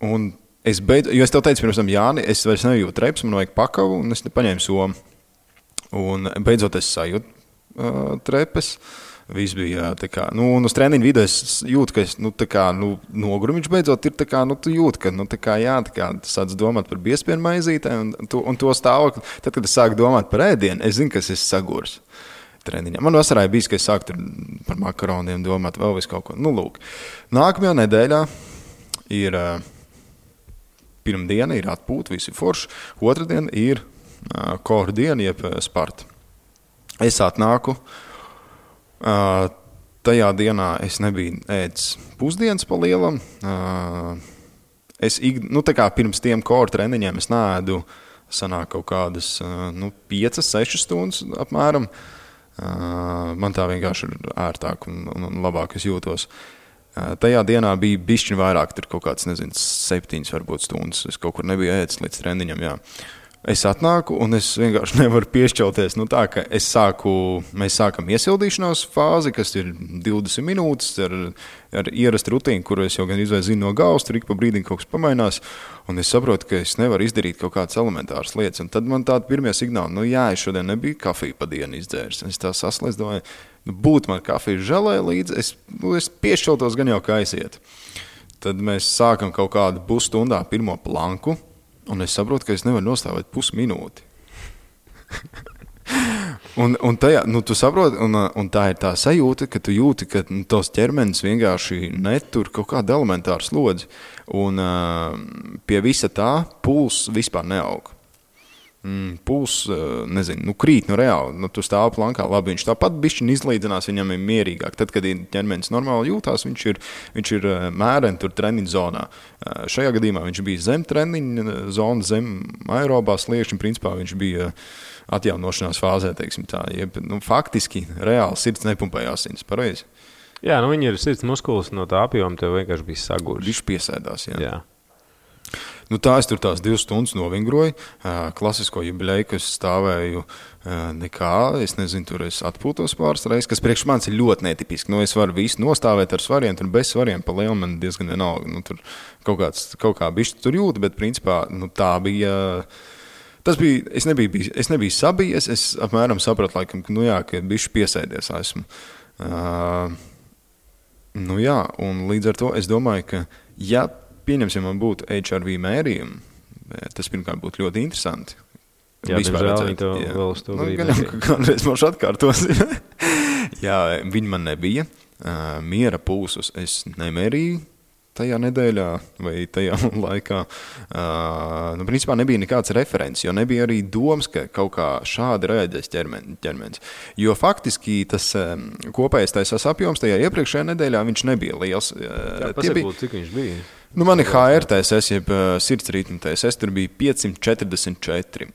Un jo es tev teicu pirms tam, Jāni, es vairs nejūtu treps, man vajag pakavu, un es paņēmu somu. Un beidzot es sajūtu trepes, viss bija tā kā, un uz treniņu vidē es jūtu, ka es, nogurumiņš beidzot ir tā kā, tu jūti, ka, tu sāc domāt par biespienu maizītēm, un to stāvokli, tad, kad es sāku domāt par ēdienu, es zinu, ka es esmu sagurs treniņā. Man vasarā bijis, ka es sāku par makaroniem domāt, vēl visu kaut ko. Lūk. Nākamajā nedēļā ir pirmdiena, ir atpūta, visi forši, otrdiena ir core diena, jeb Sparta. Es atnāku, tajā dienā es nebiju ēdis pusdienas pa lielam. Tā kā pirms tiem core treniņiem es neēdu, sanāk kaut kādas 5-6 stundas apmēram. Man tā vienkārši ir ērtāk un labāk es jūtos. Tajā dienā bija bišķiņ vairāk, tur kaut kāds, 7 varbūt stundas. Es kaut kur nebiju ēdis līdz treniņam, jā. Es atnāku un es vienkārši nevaru piešķelties. Tā, ka mēs sākam iesildīšanās fāzi, kas ir 20 minūtes ar ierastu rutīnu, kuru es jau gan zinu no galvas, tur ik pa brīdim kaut kas pamainās. Un es saprotu, ka es nevaru izdarīt kaut kādas elementāras lietas. Un tad man tādi pirmie signāli, es šodien nebiju kafiju pa dienu izdzēris. Es tā saslēdzu, domāju, būtu man kafiju želē līdzi, es piešķeltos gan jau kā aiziet. Tad mēs sākam kaut kādu pusstundā pirmo planku. Un es saprotu, ka es nevaru nostāvēt pusminūti. un tajā, tu saproti, un tā ir tā sajūta, ka tu jūti, ka tos ķermenis vienkārši netur kaut kādu elementāru slodzi. Un pie visa tā pulss vispār neaug. Pulss, krīt reāli. Tu stāv plankā, labi, viņš tāpat bišķiņ izlīdzinās, viņam ir mierīgāk. Tad, kad ķermenis normāli jūtās, viņš ir mēreni tur treniņu zonā. Šajā gadījumā viņš bija zem treniņu zona, zem aerobā sliekšņa, principā viņš bija atjaunošanās fāzē, teiksim tā. Faktiski reāli sirds nepumpēja asins, pareizi? Jā, viņi ir sirds muskulis no tā apjoma, tev vienkārši bija saguris. Viņš piesēdās, jā. Tā es tur tās 2 stundas novingroju. Klasisko jubileju, kas stāvēju nekā. Es nezinu, tur es atpūtos pāris reizes, kas priekš manis ir ļoti netipiski. Es varu visu nostāvēt ar svariem, tur bez svariem pa lielu man diezgan vienalga. Tur kaut kā bišķi tur jūta, bet principā tā bija. Tas bija, es nebiju sabijies, es apmēram sapratu, laikam, ka bišķi piesēdies esmu. Un līdz ar to es domāju, ka pieņemsim, man būtu HRV mērījumi, tas pirmkārt būtu ļoti interesanti. Jā, diemžēl viņi to vēl uz to brīdi. Kādreiz mums atkārtos. Jā, viņi man nebija. Miera pulsus es nemērīju tajā nedēļā vai tajā laikā. Principā nebija nekāds referents, jo nebija arī domas, ka kaut kā šādi reaģēs ķermenis. Jo faktiski tas kopējais taisās apjoms tajā iepriekšējā nedēļā viņš nebija liels. Jā, pasakot, cik viņš bija? Man ir HRTSS, jeb sirds ritma TSS, tur bija 544.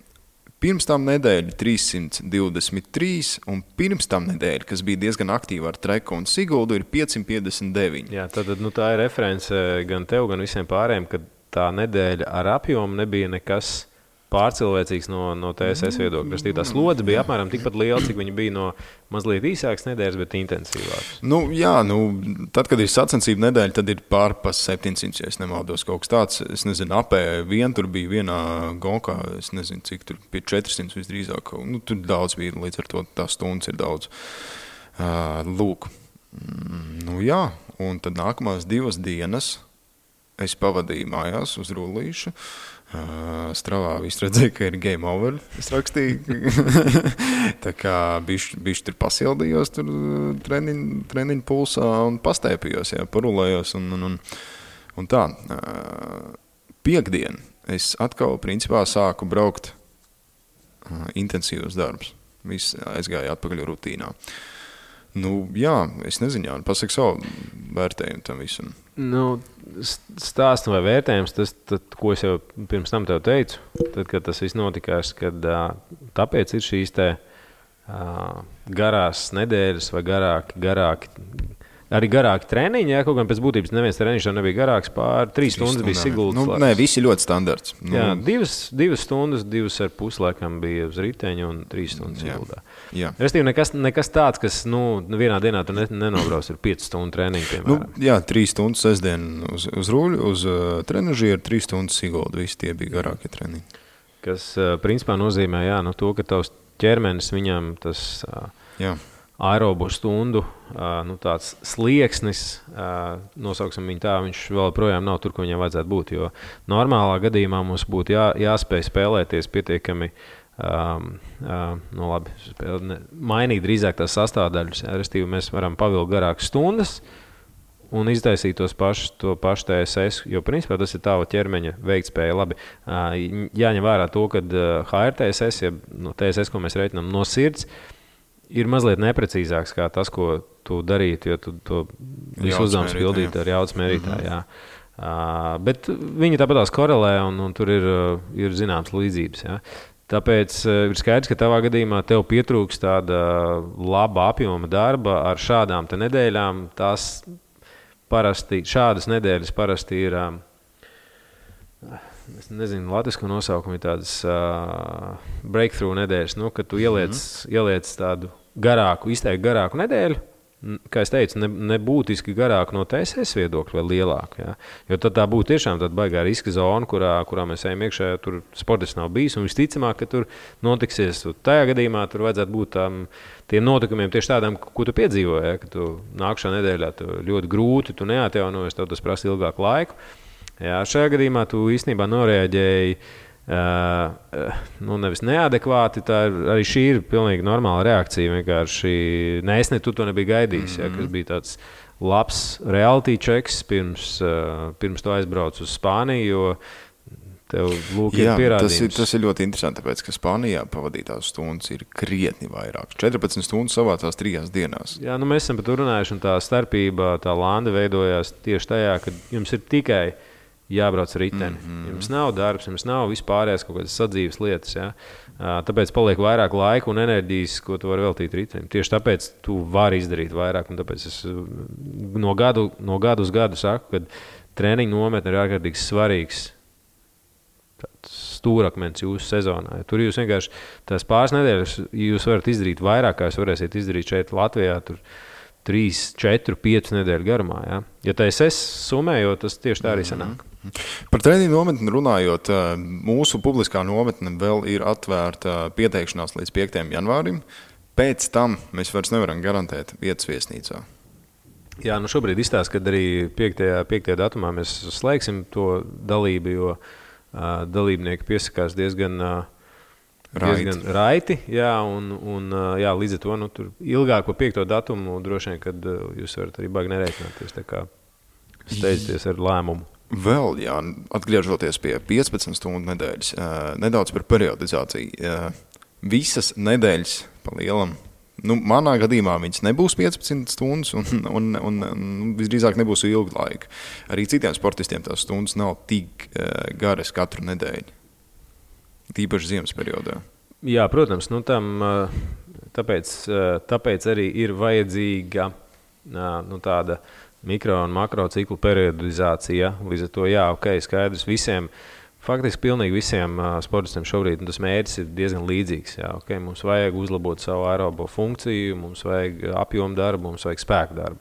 Pirms tam nedēļa 323, un pirms tam nedēļa, kas bija diezgan aktīva ar Treku un Siguldu, ir 559. Jā, tad tā ir reference gan tev, gan visiem pārējiem, ka tā nedēļa ar apjomu nebija nekas pārcilvēcīgs no TSS viedokļa. Tā slodze bija apmēram tikpat liela, cik viņa bija no mazliet īsākas nedēļas, bet intensīvākas. Tad, kad ir sacensību nedēļa, tad ir pār pa 700, ja es nemaldos kaut kas tāds. Es nezinu, apē tur bija vienā gonkā, es nezinu, cik tur pie 400 visdrīzāk. Tur daudz bija, līdz ar to tās stundas ir daudz. Lūk. Un tad nākamās 2 dienas es pavadīju mājās uz rullīšu. Stravā viss redzēja, ka ir game over, es rakstīju. Tā kā bišķi tur pasildījos tur treniņu pulsā un pastēpījos, parulējos un tā. Piektdien es atkal principā sāku braukt intensīvus darbus. Viss aizgāja atpakaļ rutīnā. Es nezinu, pasaka savu vērtējumu tam visam. Stāsts vai vērtējums, tas, ko es jau pirms tam tev teicu, tad, kad tas viss notikās, kad tāpēc ir šīs garās nedēļas vai garāki treniņi, kaut gan pēc būtības neviens treniņš jau nebija garāks, pār 3 stundas bija Siguldas. Nē, visi ļoti standarts. Jā, 2 stundas, 2,5 laikam bija uz riteņa un 3 stundas Siguldā. Restīvi, nekas tāds, kas vienā dienā tu nenobrauc ar 5 stundu treniņu, piemēram. 3 stundas sestdien uz ruļu, uz trenažieru, 3 stundas Sigulda, visi tie bija garākie treniņi. Kas principā nozīmē, to, ka tavs ķermenis viņam tas aerobu stundu tāds slieksnis, nosauksim viņu tā, viņš vēl projām nav tur, ko viņam vajadzētu būt, jo normālā gadījumā mums būtu jāspēj spēlēties pietiekami, mainīt drīzāk tās sastāvdaļas, restīvi mēs varam pavilkt garākas stundas un iztaisīt to pašu TSS, jo principā tas ir tava ķermeņa veiktspēja labi. Jāņem vērā to, ka HRTSS, ja TSS, ko mēs reiķinām no sirds, ir mazliet neprecīzāks kā tas, ko tu darītu, jo tu to visu uzdevums pildītu ar jaudas mērītāju. Bet viņi tāpatās korelē un tur ir zināms līdzības. Tāpēc ir skaidrs, ka tavā gadījumā tev pietrūks tāda laba apjoma darba ar šādām te nedēļām. Tās šādas nedēļas parasti ir, es nezinu, latvisko nosaukumu ir tādas breakthrough nedēļas, kad tu ieliec tādu izteikti garāku nedēļu, kā es teicu, nebūtiski garāku no TSS viedokļa vai lielāku. Ja? Jo tad tā būtu tiešām tāda baigā riska zona, kurā mēs ejam iekšā, ja tur sportists nav bijis. Un visticamāk, ka tur notiksies. Tajā gadījumā tur vajadzētu būt tiem notikumiem tieši tādām, ko tu piedzīvoji. Ja? Ka tu nākšā nedēļā ļoti grūti, tu neatjaunojies, tev tas prasa ilgāku laiku. Ja? Šajā gadījumā tu īstenībā noreaģēji nevis neadekvāti, arī šī ir pilnīgi normāla reakcija. Vienkārši tu to nebija gaidījis, ja, kas bija tāds labs reality checks pirms tu aizbrauc uz Spāniju, jo tev ir pierādījums. Tas ir ļoti interesanti, tāpēc, ka Spānijā pavadītās stundas ir krietni vairāk. 14 stundas savācās 3 dienās. Jā, mēs esam par to runājuši, un tā starpība, tā landa veidojās tieši tajā, ka jums ir tikai jābrauc riteni. Jums nav darbs, jums nav vispārējās kaut kādas sadzīves lietas. Ja? Tāpēc paliek vairāk laika un enerģijas, ko tu vari veltīt ritenim. Tieši tāpēc tu vari izdarīt vairāk. Un tāpēc es no gadu uz gadu saku, ka treniņu nometne ir ārkārtīgi svarīgs stūrakmens jūsu sezonā. Tur jūs vienkārši tās pāris nedēļas jūs varat izdarīt vairāk, kā jūs varēsiet izdarīt šeit Latvijā. Tur 3, 4, 5 nedēļu garumā. Ja TSS summējot, tas tieši tā arī sanāk. Par treniņu nometni runājot, mūsu publiskā nometne vēl ir atvērta pieteikšanās līdz 5. janvārim. Pēc tam mēs vairs nevaram garantēt vietas viesnīcā. Jā, šobrīd izstāsta, ka arī 5. datumā mēs slēgsim to dalību, jo dalībnieki piesakās diezgan raiti. Jā, un līdz ar to tur ilgāk par 5. datumu droši vien, kad jūs varat arī baigi nereiķināties. Tā kā steidzieties ar lēmumu. Vēl, atgriežoties pie 15 stundu nedēļas, nedaudz par periodizāciju. Visas nedēļas pa lielam, manā gadījumā viņas nebūs 15 stundas un visdrīzāk nebūs ilgu laiku. Arī citiem sportistiem tās stundas nav tik garas katru nedēļu. Tīpaši ziemas periodā. Jā, protams, tāpēc arī ir vajadzīga tāda mikro un makro ciklu periodizācija. Līdz ar to, skaidrs visiem, faktiski pilnīgi visiem sportistiem šobrīd tas mērķis ir diezgan līdzīgs. Mums vajag uzlabot savu aerobo funkciju, mums vajag apjomu darbu, mums vajag spēku darbu.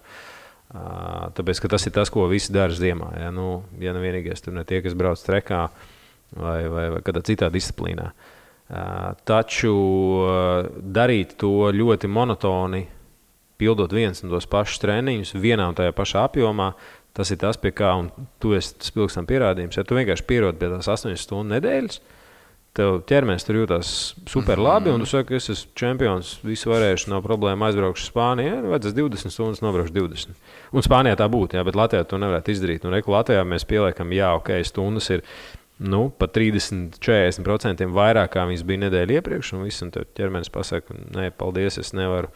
Tāpēc, ka tas ir tas, ko visi dara ziemā. Ja nevienīgais tur ne tie, kas brauc trekā, vai kādā citā disciplīnā. Taču darīt to ļoti monotoni, pildot viens un tos pašus treniņus vienā un tajā pašā apjomā, tas ir tas, pie kā, un tu esi tas pilgstam pierādījums. Ja tu vienkārši pierodi pie tās 8 stundu nedēļas, tev ķermenis tur jūtās super labi, un tu saki, ka es esmu čempions, visu varēšu, nav problēma, aizbraukšu Spānijā, vajadzēs 20 stundas, nobraukšu 20. Un Spānijā tā būtu, bet Latvijā to nevarētu izdarīt. Un Latvijā mēs pieliekam, stundas ir pat 30-40% vairāk, kā viņas bija nedēļa iepriekš, un viss, un tev ķermenis pasaka, nē, paldies, es nevaru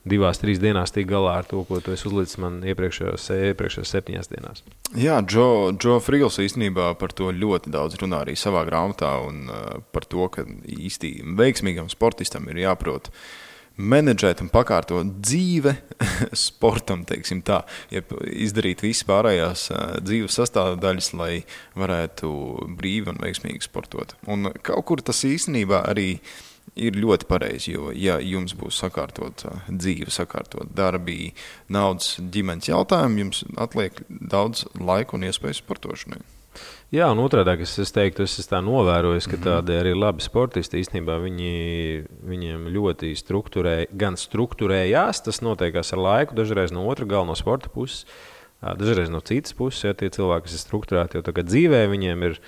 2-3 dienās tikt galā ar to, ko tu esi uzlicis man iepriekšējās 7 dienās. Jā, Joe Frigls īstenībā par to ļoti daudz runā arī savā grāmatā, un par to, ka īsti veiksmīgam sportistam ir jāprot menedžēt un pakārtot dzīve sportam, teiksim tā, izdarīt visas pārējās dzīves sastāvdaļas, lai varētu brīvi un veiksmīgi sportot. Un kaut kur tas īstenībā arī ir ļoti pareizi, jo, ja jums būs sakārtot dzīve, sakārtot darbi, naudas, ģimenes jautājumi, jums atliek daudz laika un iespējas sportošanai. Jā, un otrādāk es teiktu, es tā novērojis, ka tādi arī labi sportisti īstenībā viņiem ļoti strukturējās, tas notiekās ar laiku, dažreiz no otra gala, no sporta puses, dažreiz no citas puses, ja tie cilvēki, kas ir strukturēti, jo tagad dzīvē viņiem ir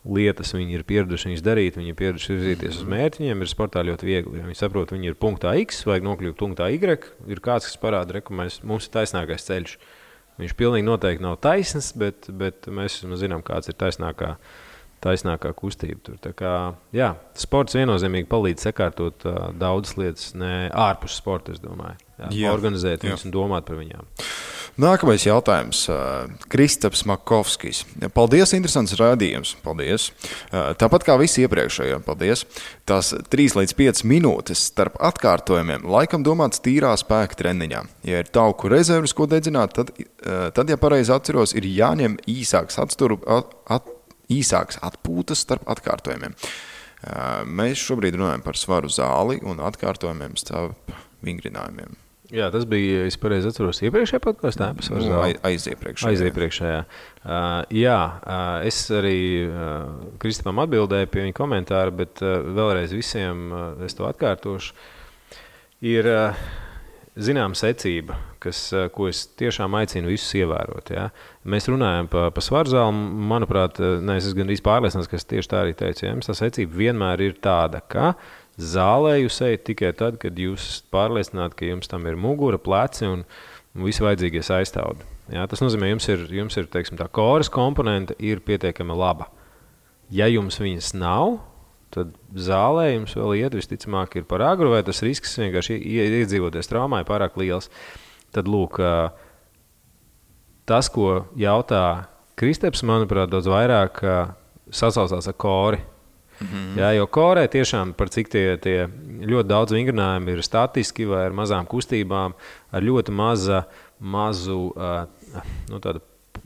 lietas, viņi ir pieraduši viņas darīt, viņi ir pieraduši virzīties uz mērķi, viņiem ir sportā ļoti viegli. Ja viņi saprot, viņi ir punktā X, vajag nokļūt punktā Y, ir kāds, kas parāda, ka mums ir taisnākais ceļš. Viņš pilnīgi noteikti nav taisns, bet mēs zinām, kāds ir taisnākā kustība. Tur. Tā kā, sports viennozīmīgi palīdz sakārtot daudzas lietas, ne ārpus sporta, es domāju. Organizēt viņus un domāt par viņām. Nākamais jautājums. Kristaps Makovskis. Paldies, interesants rādījums. Paldies. Tāpat kā visi iepriekšējie. Paldies. Tās 3 līdz 5 minūtes starp atkārtojumiem laikam domāts tīrā spēka treniņā. Ja ir tauku rezerves, ko dedzināt, tad ja pareizi atceros, ir jāņem īsāks atpūtas starp atkārtojumiem. Mēs šobrīd runājam par svaru zāli un atkārtojumiem starp vingrinājumiem. Jā, tas bija, es pareizi atceros, iepriekšējā podkastā. Aiziepriekšējā. Es arī Kristapam atbildēju pie viņa komentāra, bet vēlreiz visiem es to atkārtošu. Ir zināma secība, ko es tiešām aicinu visus ievērot. Ja? Mēs runājam pa svaru zāli, manuprāt, es gandrīz pārliecināts, ka es tieši tā arī teicu. Ja? Tā secība vienmēr ir tāda, ka zālē jūs ejat tikai tad, kad jūs esat pārliecināti, ka jums tam ir mugura, pleci un visi vajadzīgie aizstāvdi. Ja? Tas nozīmē, jums ir teiksim, tā koras komponente ir pietiekami laba. Ja jums viņas nav, tad zālē jums vēl iet visticamāk ir par agru, vai tas risks vienkārši iedzīvoties traumā ir pārāk liels. Tad lūk, tas, ko jautā Kristaps, manuprāt, daudz vairāk sasaucās ar kori. Jā, jo korē tiešām par cik tie ļoti daudz vingrinājumi ir statiski vai ar mazām kustībām, ar ļoti mazu tādu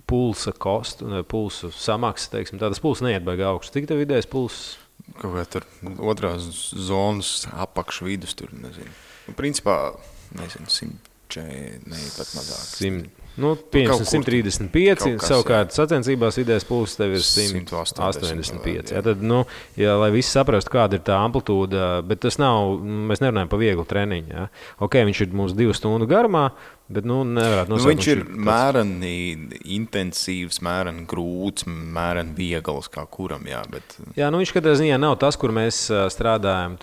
pulsa kostu, pulsu samaksu, teiksim, tādas pulsa neiet baigi augstu. Cik tev vidējais pulss? Kaut kā tur otrās zonas apakš vidus tur, nezinu. Principā, nezinu, 100, pat mazāk. 135, savukārt sacensībās vidējais pulss tev ir 185. Jā, tad, lai visi saprastu, kāda ir tā amplitūda, bet tas nav, mēs nerunājam par vieglu treniņu. Jā. Ok, viņš ir mums 2 stundu garumā, bet nevarētu nosaukt. Viņš ir mēreni intensīvs, mēreni grūts, mēreni viegls kā kuram, jā. Bet... Jā, viņš katrā ziņā nav tas, kur mēs strādājam.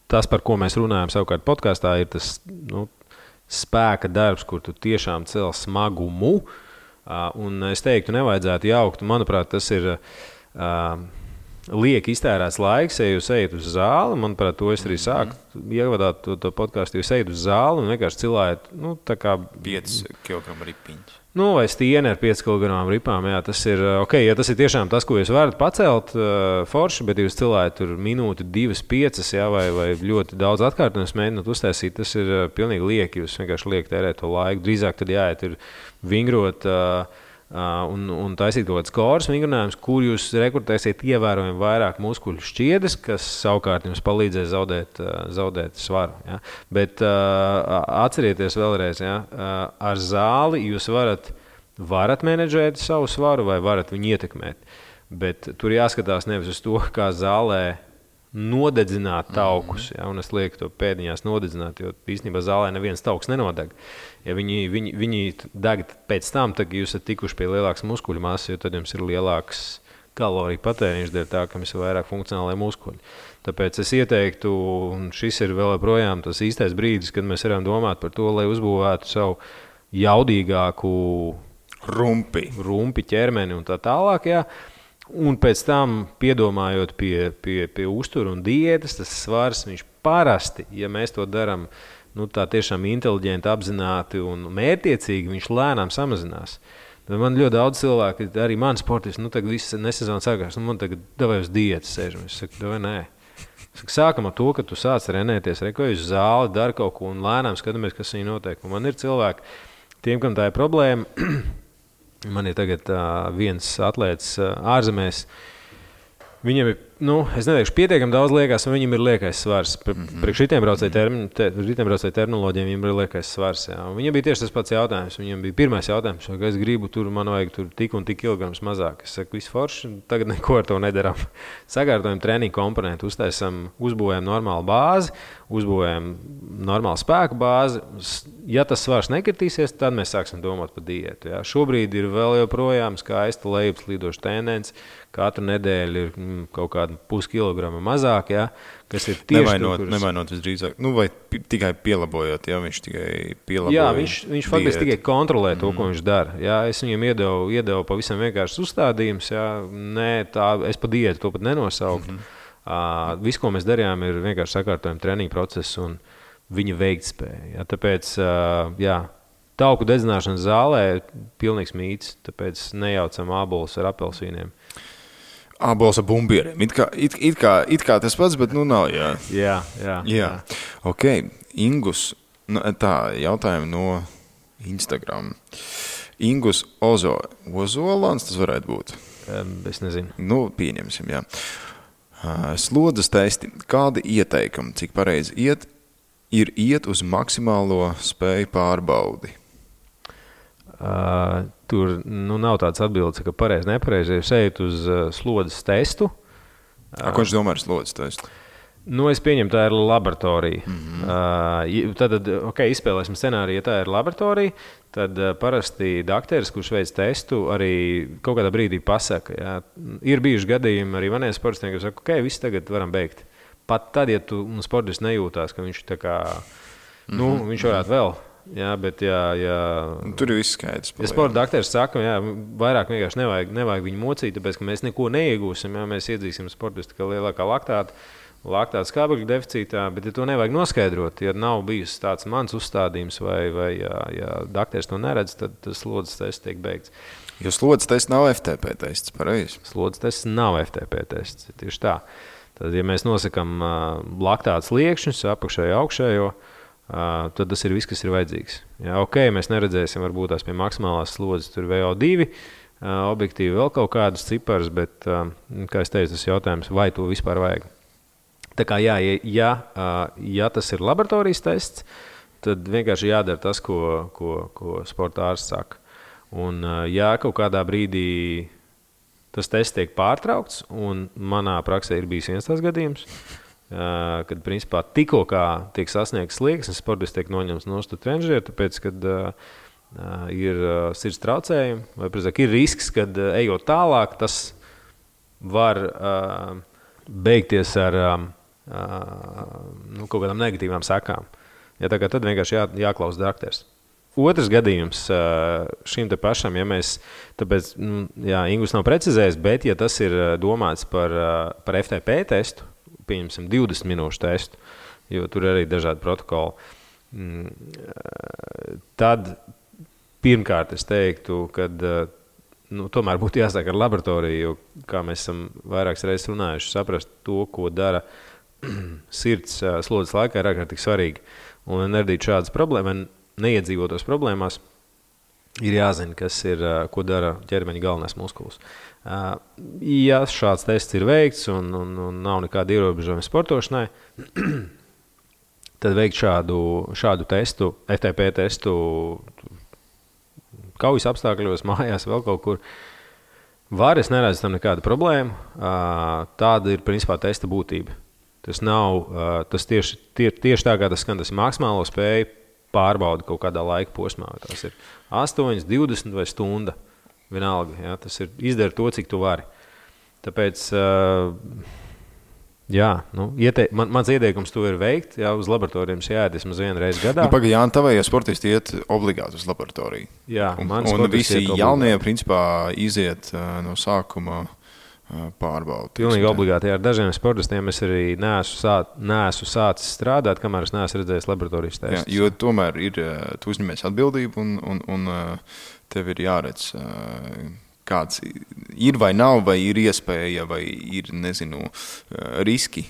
Tas, par ko mēs runājam savukārt podkastā, ir tas, spēka darbs, kur tu tiešām cel smagumu, un es teiktu, nevajadzētu jaukt. Manuprāt, tas ir lieki iztērēts laiks, ja jūs ejat uz zāli. Manuprāt, to es arī sāku ievadāt to podcastu, jūs ejat uz zāli un vienkārši cilājat, tā kā 5 kg ripiņš. Vai stieni ar 5 kg ripām, jā, tas ir ok, ja tas ir tiešām tas, ko jūs varat pacelt forši, bet jūs cilājat tur minūti, 2, 5, jā, vai ļoti daudz atkārtojumus mēģināt uztaisīt, tas ir pilnīgi lieki, jūs vienkārši lieki tērēt to laiku, drīzāk tad jāiet ir vingrot un taisīt kaut kāds koras vingrinājumus, kur jūs rekrutēsiet ievērojami vairāk muskuļu šķiedes, kas savukārt jums palīdzēs zaudēt svaru. Ja? Bet atcerieties vēlreiz, ja? Ar zāli jūs varat menedžēt savu svaru vai varat viņu ietekmēt. Bet tur jāskatās nevis uz to, kā zālē nodedzināt taukus, ja, un es lieku to pēdiņās nodedzināt, jo īstenībā zālē neviens tauks nenodeg. Ja viņi deg pēc tam, tad jūs esat tikuši pie lielākas muskuļu masas, jo tad jums ir lielāks kaloriju patēriņš dēļ tā, ka jums ir vairāk funkcionālai muskuļi. Tāpēc es ieteiktu, un šis ir vēl joprojām tas īstais brīdis, kad mēs varam domāt par to, lai uzbūvētu savu jaudīgāku rumpi ķermeni un tā tālāk, jā. Un pēc tam, piedomājot pie uztura un diētas, tas svars, viņš parasti, ja mēs to darām tā tiešām inteliģenti, apzināti un mērķiecīgi, viņš lēnām samazinās. Man ļoti daudz cilvēku, arī mani sportisti, tagad viss nesezona sākās, man tagad davai uz diētas sēžam. Es saku, davai nē. Sākam ar to, ka tu sāc renēties, rekoji uz zāli, dari kaut ko un lēnām skatāmies, kas viņi notiek. Un man ir cilvēki, tiem, kam tā ir problēma, man ir tagad viens atlēts ārzemēs. Viņam ir, es neteikšu, pietiekami daudz liekas, un viņam ir liekais svars. Priekš šitiem braucēju terminoloģiem viņam ir liekais svars. Jā. Viņam bija tieši tas pats jautājums. Viņam bija pirmais jautājums, ka es gribu man vajag tur tik un tik kilograms mazāk. Es saku, viss forši, tagad neko ar to nedaram. Sakārtojam treniņu komponentu, uzbūvējam normālu bāzi, uzbūvējam normālu spēku bāzi. Ja tas svars nekritīsies, tad mēs sāksim domāt par diētu. Jā. Šobrīd ir vēl joprojām skaista lejupslīdoša tendence. Katru nedēļu ir kaut kāda puskilograma mazāk, ja, kas ir tieši Nevainot visdrīzāk, vai tikai pielabojot, ja viņš tikai pielaboja. Jā, viņš faktiski tikai kontrolē to, ko viņš dara. Ja, es viņam iedevu pavisam vienkārši uzstādījums, ja, es pa diētu to pat nenosauku. Viss, ko mēs darījām, ir vienkārši sakārtojam treniņu procesu un viņa veiktspēja. Ja, tāpēc, tauku dedzināšanas zālē pilnīgs mīts, tāpēc nejaucam ābolus ar apelsīniem. Ābols ar bumbieriem. It kā tas pats, bet nav, jā. Jā. Ok, Ingus, tā jautājumi no Instagram. Ingus Ozolans, tas varētu būt? Es nezinu. Pieņemsim, jā. Slodzes testi. Kādi ieteikumi, cik pareizi ir iet uz maksimālo spēju pārbaudi? Tur nav tāds atbildes, ka pareizi, nepareizi. Ja jūs ejat uz slodzes testu. Ko viņš domā ar slodzes testu? Es pieņemu, tā ir laboratorija. Tad, izspēlēsim scenāriju, ja tā ir laboratorija, tad parasti dakteris, kurš veic testu, arī kaut kādā brīdī pasaka. Jā. Ir bijuši gadījumi arī maniem sportistiem, kas saka, viss tagad varam beigt. Pat tad, ja tu sportists nejūtās, ka viņš tā kā, viņš varētu vēl. Jā, bet tur ir viss skaidrs. Ja sporta dakteris saka, vairāk vienkārši nevajag viņu mocīt, tāpēc, ka mēs neko neiegūsim, mēs iedzīsim sportistu, ka lielākā laktāta skābekļa deficītā, bet ja to nevajag noskaidrot, ja nav bijis tāds mans uzstādījums vai dakteris to neredz, tad tas slodzes tests tiek beigts. Jo slodzes tests nav FTP tests, pareizi? Slodzes tests nav FTP tests, tieši tā. Tad, ja mēs nosakam laktāta sliekšņus, apakšējo, augšējo, tad tas ir viss, kas ir vajadzīgs. Jā, mēs neredzēsim varbūt tās pie maksimālās slodzes, tur VO2, objektīvi vēl kaut kādus ciparus, bet, kā es teicu, tas jautājums, vai to vispār vajag. Tā kā ja tas ir laboratorijas tests, tad vienkārši jādara tas, ko sporta ārsts saka. Un ja kaut kādā brīdī tas tests tiek pārtraukts, un manā praksē ir bijis viens tās gadījums, kad principā tikko kā tiek sasniegts slieksnis, sportists tiek noņemts no trenižera, tāpēc, kad ir sirds traucējumi, vai precīzāk ir risks, kad ejot tālāk, tas var beigties ar kaut kādām negatīvām sekām. Ja, tad vienkārši jāklausa dakteris. Otrs gadījums šim te pašam, ja mēs, tāpēc, Ingus nav precizējis, bet ja tas ir domāts par FTP testu, pieņemsim 20 minūšu testu, jo tur arī dažādi protokoli, tad pirmkārt es teiktu, kad tomēr būtu jāsāk ar laboratoriju, jo, kā mēs esam vairākas reizes runājuši, saprast to, ko dara sirds slodzes laikā, ir ārkārtīgi svarīgi. Un neradīt šādas problēmas, neiedzīvotos problēmās, ir jāzina, ko dara ķermeņa galvenais muskulis. Ja šāds tests ir veikts un nav nekāda ierobežojuma sportošanai, tad veikt šādu testu, FTP testu kaujas apstākļos, mājās, vēl kaut kur. Es neredzu tam nekādu problēmu. Tāda ir principā testa būtība. Tas tieši tā, kā tas skan, tas ir maksimālo spēju pārbauda kaut kādā laika posmā. Tas ir 8, 20 vai stunda. Vienalga, jā, tas ir izdara to, cik tu vari. Tāpēc, mans ieteikums to ir veikt, uz laboratorijām jāiet vismaz vienu reizi gadā. Pagaidām, tavējie sportisti iet obligāti uz laboratoriju. Jā, un visi jaunie, principā, iziet no sākuma pārbaudi. Pilnīgi obligāti. Ar dažiem sportistiem es arī neesmu sācis strādāt, kamēr es neesmu redzējis laboratorijas testus. Jo tomēr tu uzņemies atbildību un tev ir jāredz, kāds ir vai nav, vai ir iespēja, vai ir, riski,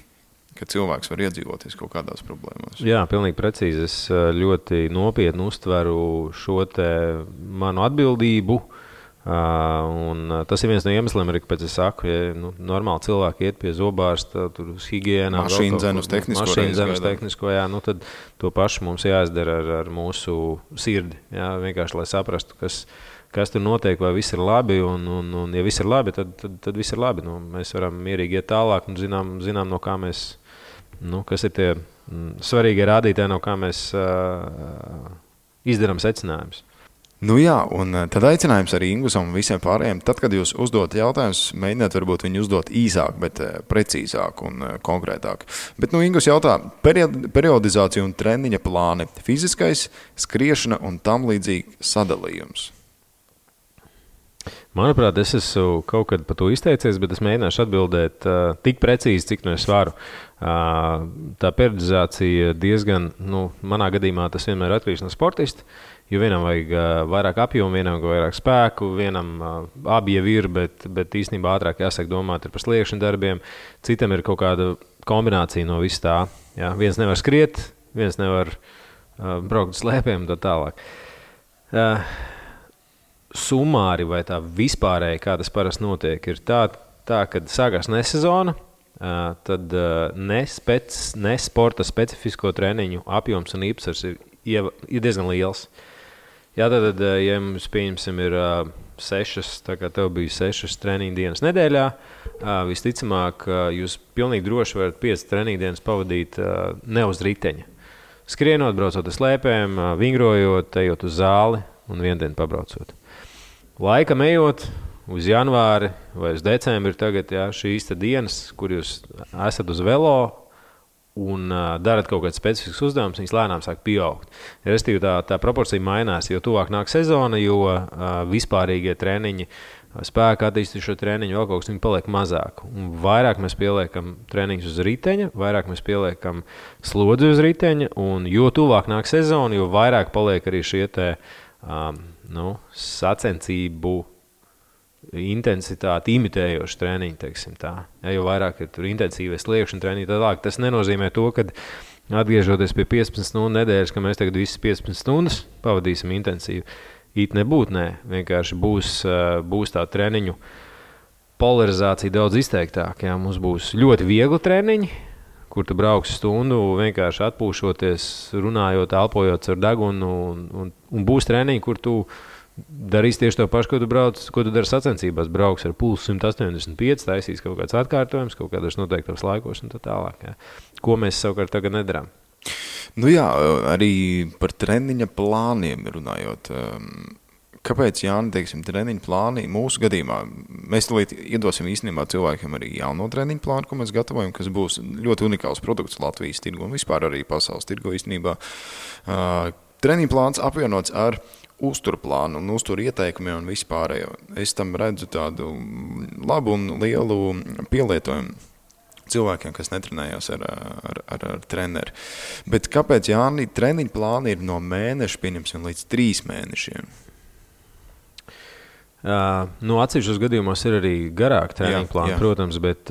ka cilvēks var iedzīvoties kaut kādās problēmās. Jā, pilnīgi precīzi. Es ļoti nopietni uztveru šo te manu atbildību. Un tas ir viens no iemesliem, arī, kāpēc es saku, ja normāli cilvēki iet pie zobārsta, tur uz higiēnā, mašīnu dzenu uz tehnisko, tad to pašu mums jāizdara ar mūsu sirdi, vienkārši, lai saprastu, kas tur notiek, vai viss ir labi, un ja viss ir labi, tad viss ir labi. Mēs varam mierīgi iet tālāk un zinām no kā mēs, kas ir tie svarīgie rādītāji, no kā mēs izdarām secinājumus. Un tad aicinājums arī Ingusam un visiem pārējiem. Tad, kad jūs uzdot jautājumus, mēģiniet varbūt viņu uzdot īsāk, bet precīzāk un konkrētāk. Bet Ingus jautā, periodizācija un treniņa plāni, fiziskais, skriešana un tam līdzīgi sadalījums. Manuprāt, es esmu kaut kad par to izteicies, bet es mēģināšu atbildēt tik precīzi, cik es varu. Tā periodizācija diezgan, manā gadījumā tas vienmēr atkarīgs no sportista. Jo vienam vajag vairāk apjomu, vienam vajag vairāk spēku, vienam abi jau ir, bet īstenībā ātrāk jāsāk domāt par sliekšņu darbiem. Citam ir kaut kāda kombinācija no viss tā. Jā. Viens nevar skriet, viens nevar braukt uz slēpēm un tā tālāk. Sumāri vai tā vispārēji, kā tas parasti notiek, ir tā kad sākās nesezona, tad ne sporta specifisko treniņu apjoms un īpatsvars ir diezgan liels. Jā, tad, ja mums, pieņemsim, ir 6, tā kā tev bija 6 treniņu dienas nedēļā, visticamāk, jūs pilnīgi droši varat 5 treniņu dienas pavadīt ne uz riteņa. Skrienot, braucot uz slēpēm, vingrojot, ejot uz zāli un vienu dienu pabraucot. Laikam ejot uz janvāri vai uz decembri tagad, jā, šīs dienas, kur jūs esat uz velo un darat kaut kāds specifisks uzdevums, viņas lēnām sāk pieaugt. Restīvi tā proporcija mainās, jo tuvāk nāk sezona, jo vispārīgie treniņi, spēka attīstīšo treniņu, vēl kaut kas viņi paliek mazāk. Un vairāk mēs pieliekam treniņus uz riteņa, vairāk mēs pieliekam slodzi uz riteņa, un jo tuvāk nāk sezona, jo vairāk paliek arī šie sacensību intensitāti imitējoši treniņi, teiksim tā. Ja, jo vairāk ir tur intensīvais sliekšņu treniņi, tad tas nenozīmē to, ka atgriežoties pie 15 stundu nedēļas, ka mēs tagad visas 15 stundas pavadīsim intensīvi. It nebūtu, nē. Vienkārši būs tā treniņu polarizācija daudz izteiktāka. Ja. Mums būs ļoti viegli treniņi, kur tu brauksi stundu, vienkārši atpūšoties, runājot, elpojot ar degunu, un būs treniņi, kur tu darīsi tieši to pašu, ko tu dari sacensībās. Brauks ar pulsu 185, taisīs kaut kāds atkārtojums, kaut kādos noteiktos laikos un tā tālāk. Ja. Ko mēs savukārt tagad nedarām? Nu jā, arī par treniņa plāniem runājot. Kāpēc, Jāni, teiksim, treniņa plāni mūsu gadījumā? Mēs tulīt iedosim īstenībā cilvēkiem arī jauno treniņa plānu, ko mēs gatavojam, kas būs ļoti unikāls produkts Latvijas tirgu un vispār arī pasaules tirgu īstenībā. Treniņa plāns apvienots ar uzturplānu un uzturu ieteikumiem un vispārējo. Es tam redzu tādu labu un lielu pielietojumu cilvēkiem, kas netrenējās ar treneri. Bet kāpēc, Jāni, treniņa plāni ir no mēneša, pieņemsim, līdz 3 mēnešiem? Atsevišķos gadījumos ir arī garāk treniņa plāni, protams, bet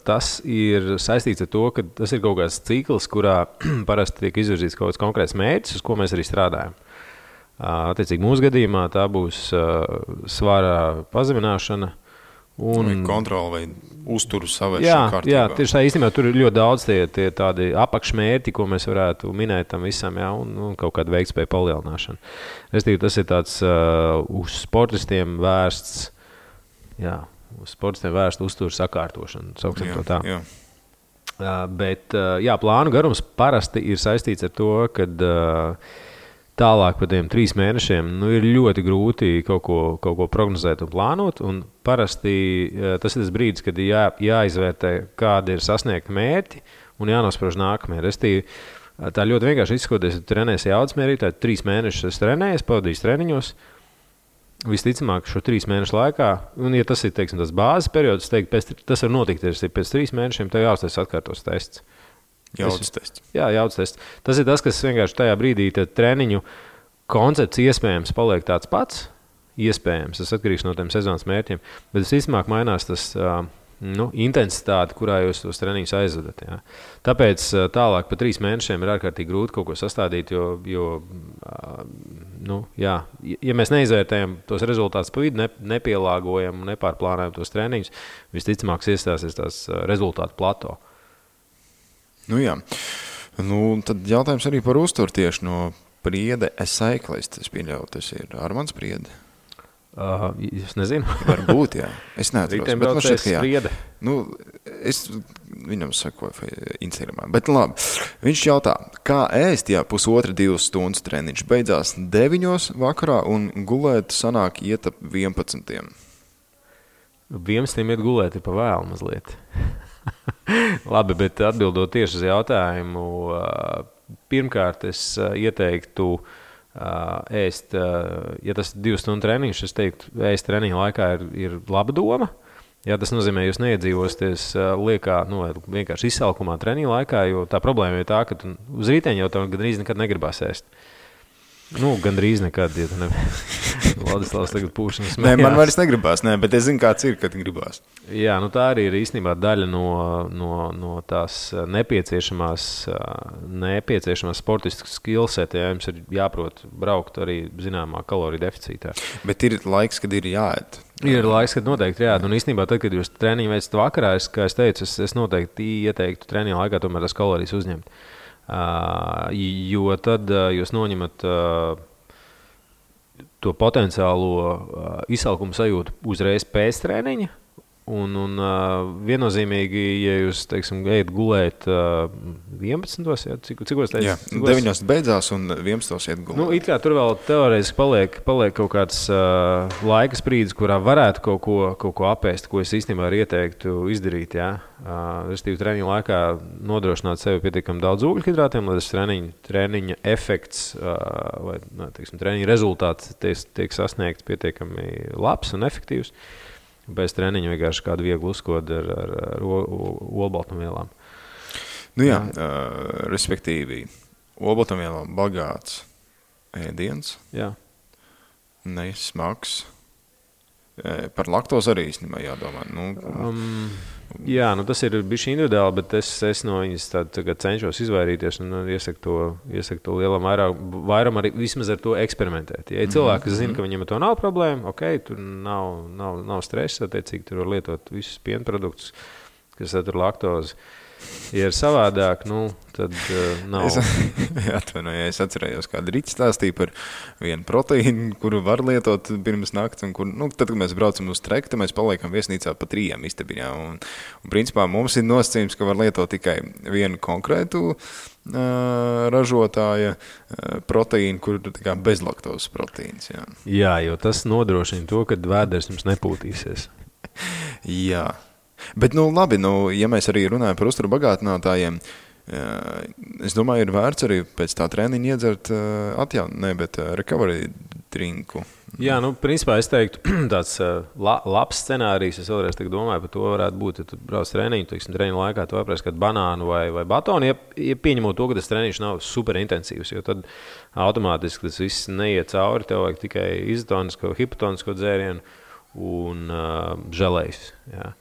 tas ir saistīts ar to, ka tas ir kaut kāds cikls, kurā parasti tiek izvirzīts kaut kāds konkrēts mērķis, uz ko mēs arī strādājam. Attiecīgi mūsu gadījumā tā būs svara pazemināšana un kontrola vai uzturu savēršana kārtībā. Jā, tieši tā īstenībā tur ir ļoti daudz tie tādi apakšmērķi, ko mēs varētu minēt tam visam, jā, un kaut kāda veiktspēja palielināšana. Restīvi, tas ir tāds uz sportistiem vērsts, uzturu sakārtošana, sauksim to tā. Jā. Bet plānu garums parasti ir saistīts ar to, kad tālāk par tiem 3 mēnešiem ir ļoti grūti kaut ko prognozēt un plānot. Un parasti tas ir tas brīdis, kad jāizvērtē, kādi ir sasniegti mērķi un jānosprauž nākamie. Restīvi, tā ļoti vienkārši izskoties, ja tu trenēsi jaudas mērķi, tad 3 mēnešus es trenēju, pavadīju treniņos. Visticamāk, šo 3 mēnešu laikā, un ja tas ir, teiksim, tas bāzes periods, tas var notikt, ja pēc 3 mēnešiem tev jāuztais atkārtos tests. Jaudas tests. Jā, jaudas tests. Tas ir tas, kas vienkārši tajā brīdī treniņu koncepts iespējams paliek tāds pats. Iespējams, tas atkarīgs no tiem sezonas mērķiem. Bet visticamāk mainās tas intensitāte, kurā jūs tos treniņus aizvedat. Jā. Tāpēc tālāk pa 3 mēnešiem ir ārkārtīgi grūti kaut ko sastādīt, jo mēs neizvērtējam tos rezultātus pa vidu, nepielāgojam, nepārplānojam tos treniņus, visticamāk iestāsies tās rezultātu plato. Tad jautājums arī par uzturu tieši no Priede Cyclist. Es pieļauju, tas ir Armands Priede. Es nezinu. Varbūt, jā. Es neatros. Bet man šķiet, ka jā. Es viņam sakoju Instagramā. Bet labi, viņš jautā, kā ēst, ja 1,5–2 stundas treniņš beidzās 9 vakarā un gulēt sanāk iet ap 11. 11 iet gulēt ir pa vēlu mazliet. Labi, bet atbildot tieši uz jautājumu, pirmkārt es ieteiktu ēst, ja tas ir 2 stundu treniņš, es teiktu, ēst treniņa laikā ir laba doma. Jā, tas nozīmē, jūs neiedzīvosties liekā, vienkārši izsalkumā treniņa laikā, jo tā problēma ir tā, ka uz rīteņa jau tev gandrīz nekad negribās ēst. Gandrīz nekad, ja tu Vladislavs tagad pūšanas Nē, man vairs negribās, bet es zinu, kāds ir, kad gribās. Jā, tā arī ir īstenībā daļa no tās nepieciešamās sportistas skillset, ja jums ir jāprot braukt arī zināmā kaloriju deficītā. Bet ir laiks, kad ir jāēd. Ir laiks, kad noteikti jāēd. Un īstenībā tad, kad jūs treniņu veicat vakarā, kā es teicu, es noteikti ieteiktu treniņu laikā tomēr tās kalorijas uzņemt. Jo tad jūs noņemat to potenciālo izsalkumu sajūtu uzreiz pēc treniņa. Un viennozīmīgi, ja jūs, teiksim, ejat gulēt 11. Ja, cikos teicu? Jā, 9. beidzās un 11. iet gulēt. It kā tur vēl teorētiski paliek kaut kāds laika sprīdis, kurā varētu kaut ko apēst, ko es īstenībā arī ieteiktu izdarīt. Ja? Restīvi treniņa laikā nodrošināt sevi pietiekami daudz ūgļhidrātiem, lai tas treniņa efekts vai, teiksim, treniņa rezultāts tiek sasniegts pietiekami labs un efektīvs. Bez treniņa vienkārši kādu vieglu uzkodu ar olbaltumvielām. Respektīvi, olbaltumvielām bagāts ēdiens, nesmags. Par laktozi arī īstenībā jādomā. Tas ir bišķi individuāli, bet es no viņas tagad cenšos izvairīties un iesaku to lielam vairam arī vismaz ar to eksperimentēt. Ja cilvēki, kas zina, ka viņiem ar to nav problēma, tur nav stresa, attiecīgi tur var lietot visus pienproduktus, kas satur laktozi. Ja ir savādāk, tad nav. Es atcerējos, kāda Rīta stāstīja par vienu proteīnu, kuru var lietot pirms nakts, un kur, tad, kad mēs braucam uz treku, tad mēs paliekam viesnīcā pa 3 istabiņā. Un principā mums ir nosacījums, ka var lietot tikai vienu konkrētu ražotāja proteīnu, kur ir bezlaktozes proteīns. Jā, jo tas nodrošina to, ka vēders jums nepūtīsies. Jā. Bet, labi, ja mēs arī runājam par uzturu bagātinātājiem, es domāju, ir vērts arī pēc tā treniņa iedzert recovery drinku. Jā, principā es teiktu, tāds labs scenārijs, es vēlreiz domāju par to varētu būt, ja tu brauc treniņu, treniņu laikā tu apēst kādu banānu vai batonu, ja pieņemot to, ka tas treniņš nav super intensīvs, jo tad automātiski tas viss neiet cauri, tev vajag tikai izotonisko, hipotonisko dzērienu un želejus, jā.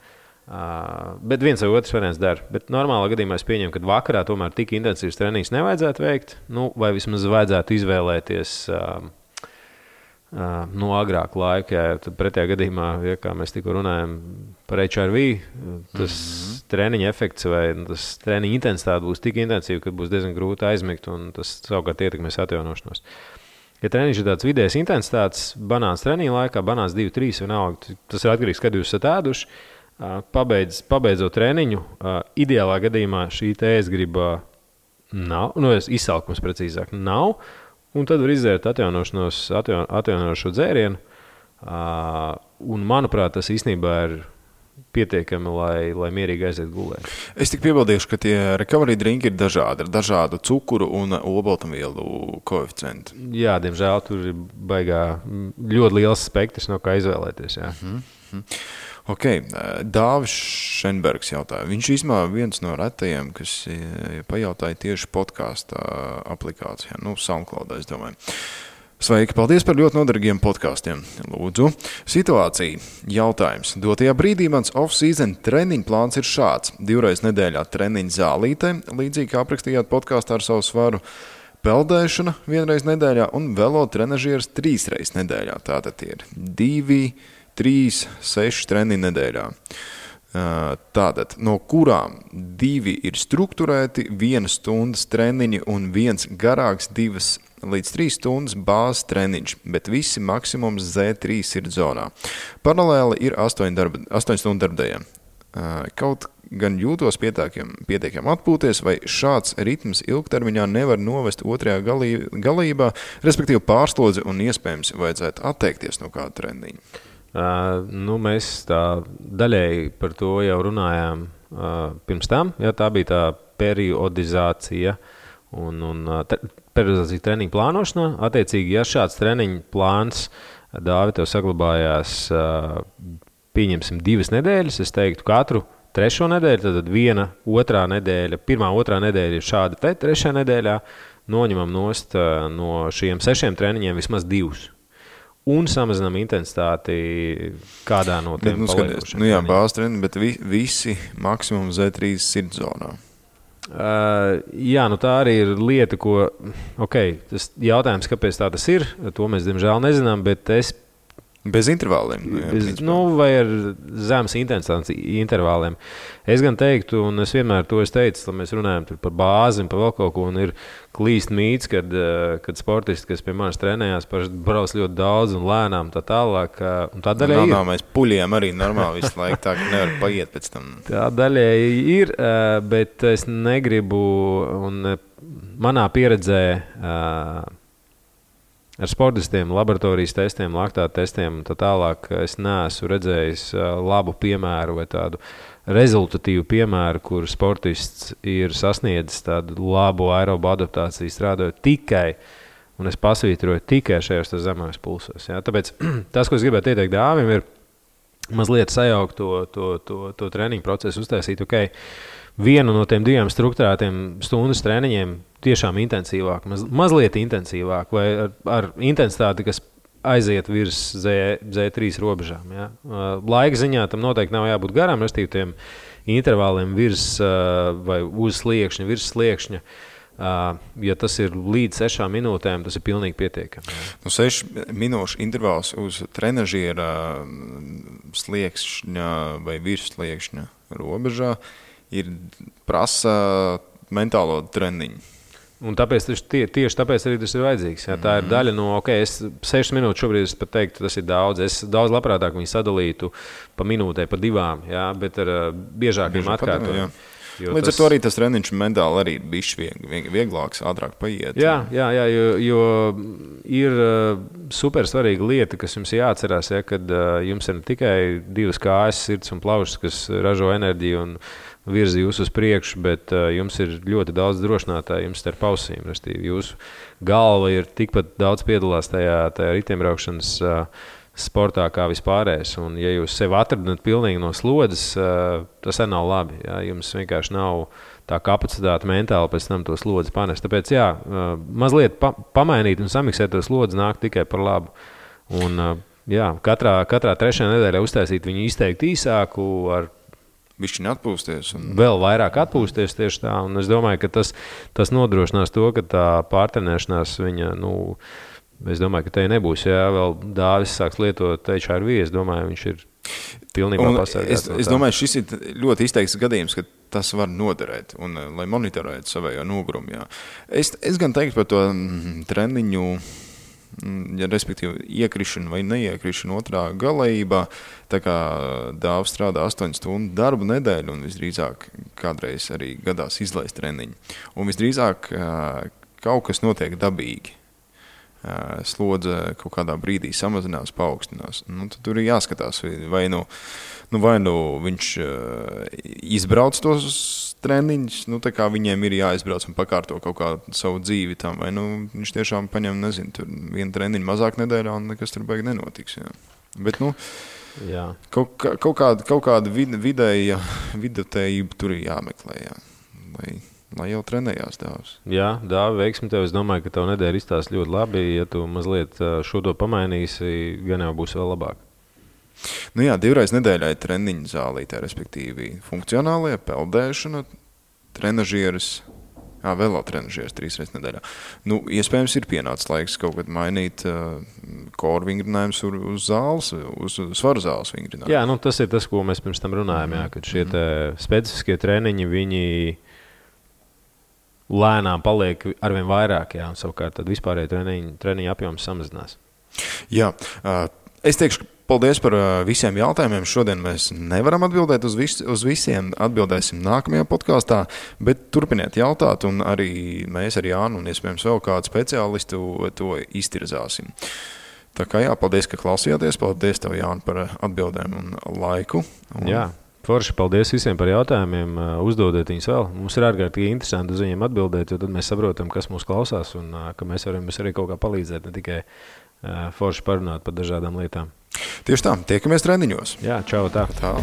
Bet viens vai otrs variants dara. Bet normālā gadījumā es pieņemu, ka vakarā tomēr tik intensīvs treniņš nevajadzētu veikt, vai vismaz vajadzētu izvēlēties agrāk laika. Tad pretējā gadījumā, kā mēs tikko runājam par HRV, tas treniņa efekts vai tas treniņa intensitāte būs tik intensīva, ka būs diezgan grūti aizmigt un tas savukārt ietekmēs atjaunošanos. Ja treniņš ir tāds vidējas intensitātes, banāns treniņa laikā, banāns 2-3 vienalga, tas ir atkarīgs, kad jūs esat ēduši. Pabeidzot treniņu, ideālā gadījumā šī ēstgriba nav, izsalkums precīzāk nav, un tad var izdzērt atjaunošo dzērienu, un manuprāt, tas īstenībā ir pietiekami, lai mierīgi aiziet gulēt. Es tik piebildīšu, ka tie recovery drinki ir dažādi, ar dažādu cukuru un olbaltumvielu koeficientu. Jā, diemžēl tur ir ļoti liels spektrs, no kā izvēlēties. Jā. Ok, Dāvis Šenbergs jautāja. Viņš īstenībā viens no retajiem, kas pajautāja tieši podkāsta aplikācijā, SoundCloudā, es domāju. Sveiki, paldies par ļoti noderīgiem podkāstiem. Lūdzu, situācija, jautājums. Dotajā brīdī mans off-season treniņu plāns ir šāds. 2 reizes nedēļā treniņu zālītē, līdzīgi kā aprakstījāt podkāstā ar savu svaru, peldēšana 1 reizi nedēļā un velo trenažieris 3 reizes nedēļā. Tātad tie ir 2, 3, 6 treniņu nedēļā. Tātad, no kurām 2 ir strukturēti, 1 stundas treniņi un 1 garāks 2 līdz 3 stundas bāzes treniņš, bet visi maksimums Z3 ir zonā. Paralēli ir 8 stundu darbdējiem. Kaut gan jūtos pietiekami atpūties, vai šāds ritms ilgtermiņā nevar novest otrajā galībā, respektīvi pārslodzi un iespējams vajadzētu atteikties no kāda treniņa. Mēs tā daļēji par to jau runājām pirms tam. Jā, tā bija tā periodizācija un periodizācija treniņu plānošanā. Attiecīgi, ja šāds treniņu plāns, Dāvi, tev saglabājās, pieņemsim 2 nedēļas, es teiktu katru 3. nedēļu, tad 1 otrā nedēļa, 1. otrā nedēļa ir šāda te 3. nedēļā, noņemam nost no šiem 6 treniņiem vismaz 2. Un samazinām intensitāti kādā no tiem paliekošiem. Jā, bāzes treniņi, bet visi maksimum Z3 sirdzonā. Jā, tā arī ir lieta, ko, tas jautājums, kāpēc tā tas ir, to mēs, diemžēl, nezinām, bet es bez intervāliem. Vai ar zemes intensitātes intervāliem. Es gan teiktu, un es vienmēr to teicu, lai mēs runājam par bāzi un par vēl kaut ko, un ir klīst mīts, kad sportisti, kas pie manis trenējās, brauc ļoti daudz un lēnām tā tālāk. Un tā daļai ir. Mēs puļiem arī normāli visu laiku, tā ka nevar paiet pēc tam. Tā daļai ir, bet es negribu, un manā pieredzē ar sportistiem, laboratorijas testiem, laktāta testiem un tā tālāk es neesmu redzējis labu piemēru vai tādu rezultatīvu piemēru, kur sportists ir sasniedzis tādu labu aerobu adaptāciju strādājot tikai, un es pasvītroju tikai šajos zemākos pulsos. Ja? Tāpēc tas, ko es gribētu ieteikt dāvim, ir mazliet sajaukt to treniņu procesu, uztaisīt, vienu no tiem 2 strukturētiem stundas treniņiem tiešām intensīvāk, mazliet intensīvāk vai ar intensitāti, kas aiziet virs Z3 robežām. Ja? Laika ziņā tam noteikti nav jābūt garām, restīvi tiem intervāliem virs vai uz sliekšņa, virs sliekšņa. Ja tas ir līdz 6 minūtēm, tas ir pilnīgi pietiekami. 6 minūšu intervāls uz trenažiera sliekšņa vai virs sliekšņa robežā ir prasa mentālo treniņu. Un tieši tāpēc arī tas ir vajadzīgs. Ja? Tā ir daļa no, es 6 minūtes šobrīd es pat teiktu, tas ir daudz. Es daudz labprātāk viņu sadalītu pa minūtē, pa 2, ja? Bet ar biežākiem atkārtojumiem. Līdz ar to arī tas treniņš mentāli arī ir bišķi vieglāks, ātrāk paiet. Jā, jo ir super svarīga lieta, kas jums jāatcerās, ja, kad jums ir ne tikai 2 kājas, sirds un plaušas, kas ražo enerģiju un virzi jūs uz priekšu, bet jums ir ļoti daudz drošinātāju jums starp ausīm. Jūsu galva ir tikpat daudz piedalās tajā riteņbraukšanas sportā kā vispārējais. Un ja jūs sevi atradat pilnīgi no slodzes, tas arī nav labi. Ja? Jums vienkārši nav tā kapacitāte mentāli pēc tam to slodzi panest. Tāpēc mazliet pamainīt un samiksēt to slodzi nāk tikai par labu. Un katrā 3. nedēļā uztaisīt viņu izteikti īsāku ar bišķiņ atpūsties. Vēl vairāk atpūsties tieši tā. Un es domāju, ka tas nodrošinās to, ka tā pārtrenēšanās viņa, es domāju, ka te nebūs. Ja vēl Dāvis sāks lietot HRV, es domāju, viņš ir pilnībā pasargāts. Es domāju, šis ir ļoti izteikts gadījums, ka tas var noderēt, un lai monitorētu savējo nogurumu. Jā. Es gan teiktu par to treniņu, respektīvi iekrišanu vai neiekrišanu otrā galējībā, tā kā Dāvs strādā 8 stundu darbu nedēļu un visdrīzāk kādreiz arī gadās izlaist treniņu. Un visdrīzāk kaut kas notiek dabīgi. Slodze kaut kādā brīdī samazinās, paaugstinās. Tad tur ir jāskatās, vai viņš izbrauc tos treniņus, tā kā viņiem ir jāizbrauc un pakārto kaut kādu savu dzīvi tam, vai viņš tiešām paņem, tur 1 treniņu mazāk nedēļā un nekas tur baigi nenotiks. Jā. Bet, jā. Kaut kāda vidutējība tur ir jāmeklē, jā. Lai jau trenējās Dāvs. Jā, Dāvi, veiksmi tev. Es domāju, ka tev nedēļa izstās ļoti labi. Ja tu mazliet šo to pamainīsi, gan jau būs vēl labāk. 2 reiz nedēļā ir treniņu zālītē, respektīvi funkcionālie, peldēšana, trenažieris, velotrenažieris 3 reizes nedēļā. Iespējams ir pienācis laiks kaut kad mainīt koru vingrinājumus uz zāles, uz svaru zāles vingrinājumus. Jā, tas ir tas, ko mēs pirms tam runājam, kad šie specifiskie treniņi, viņi lēnām paliek arvien vairāk, un savukārt tad vispārēji treniņu apjoms samazinās. Jā, es teikšu paldies par visiem jautājumiem. Šodien mēs nevaram atbildēt uz visiem, atbildēsim nākamajā podkāstā, bet turpiniet jautāt, un arī mēs ar Jānu un iespējams vēl kādu speciālistu to iztirzāsim. Tā kā paldies, ka klausījāties, paldies tev, Jāni, par atbildēm un laiku. Jā. Forši, paldies visiem par jautājumiem, uzdodiet viņus vēl. Mums ir ārkārtīgi interesanti uz viņiem atbildēt, jo tad mēs saprotam, kas mūs klausās un ka mēs varam arī kaut kā palīdzēt, ne tikai forši parunāt par dažādām lietām. Tieši tā, tiekamies treniņos. Jā, čau, tā. Tā.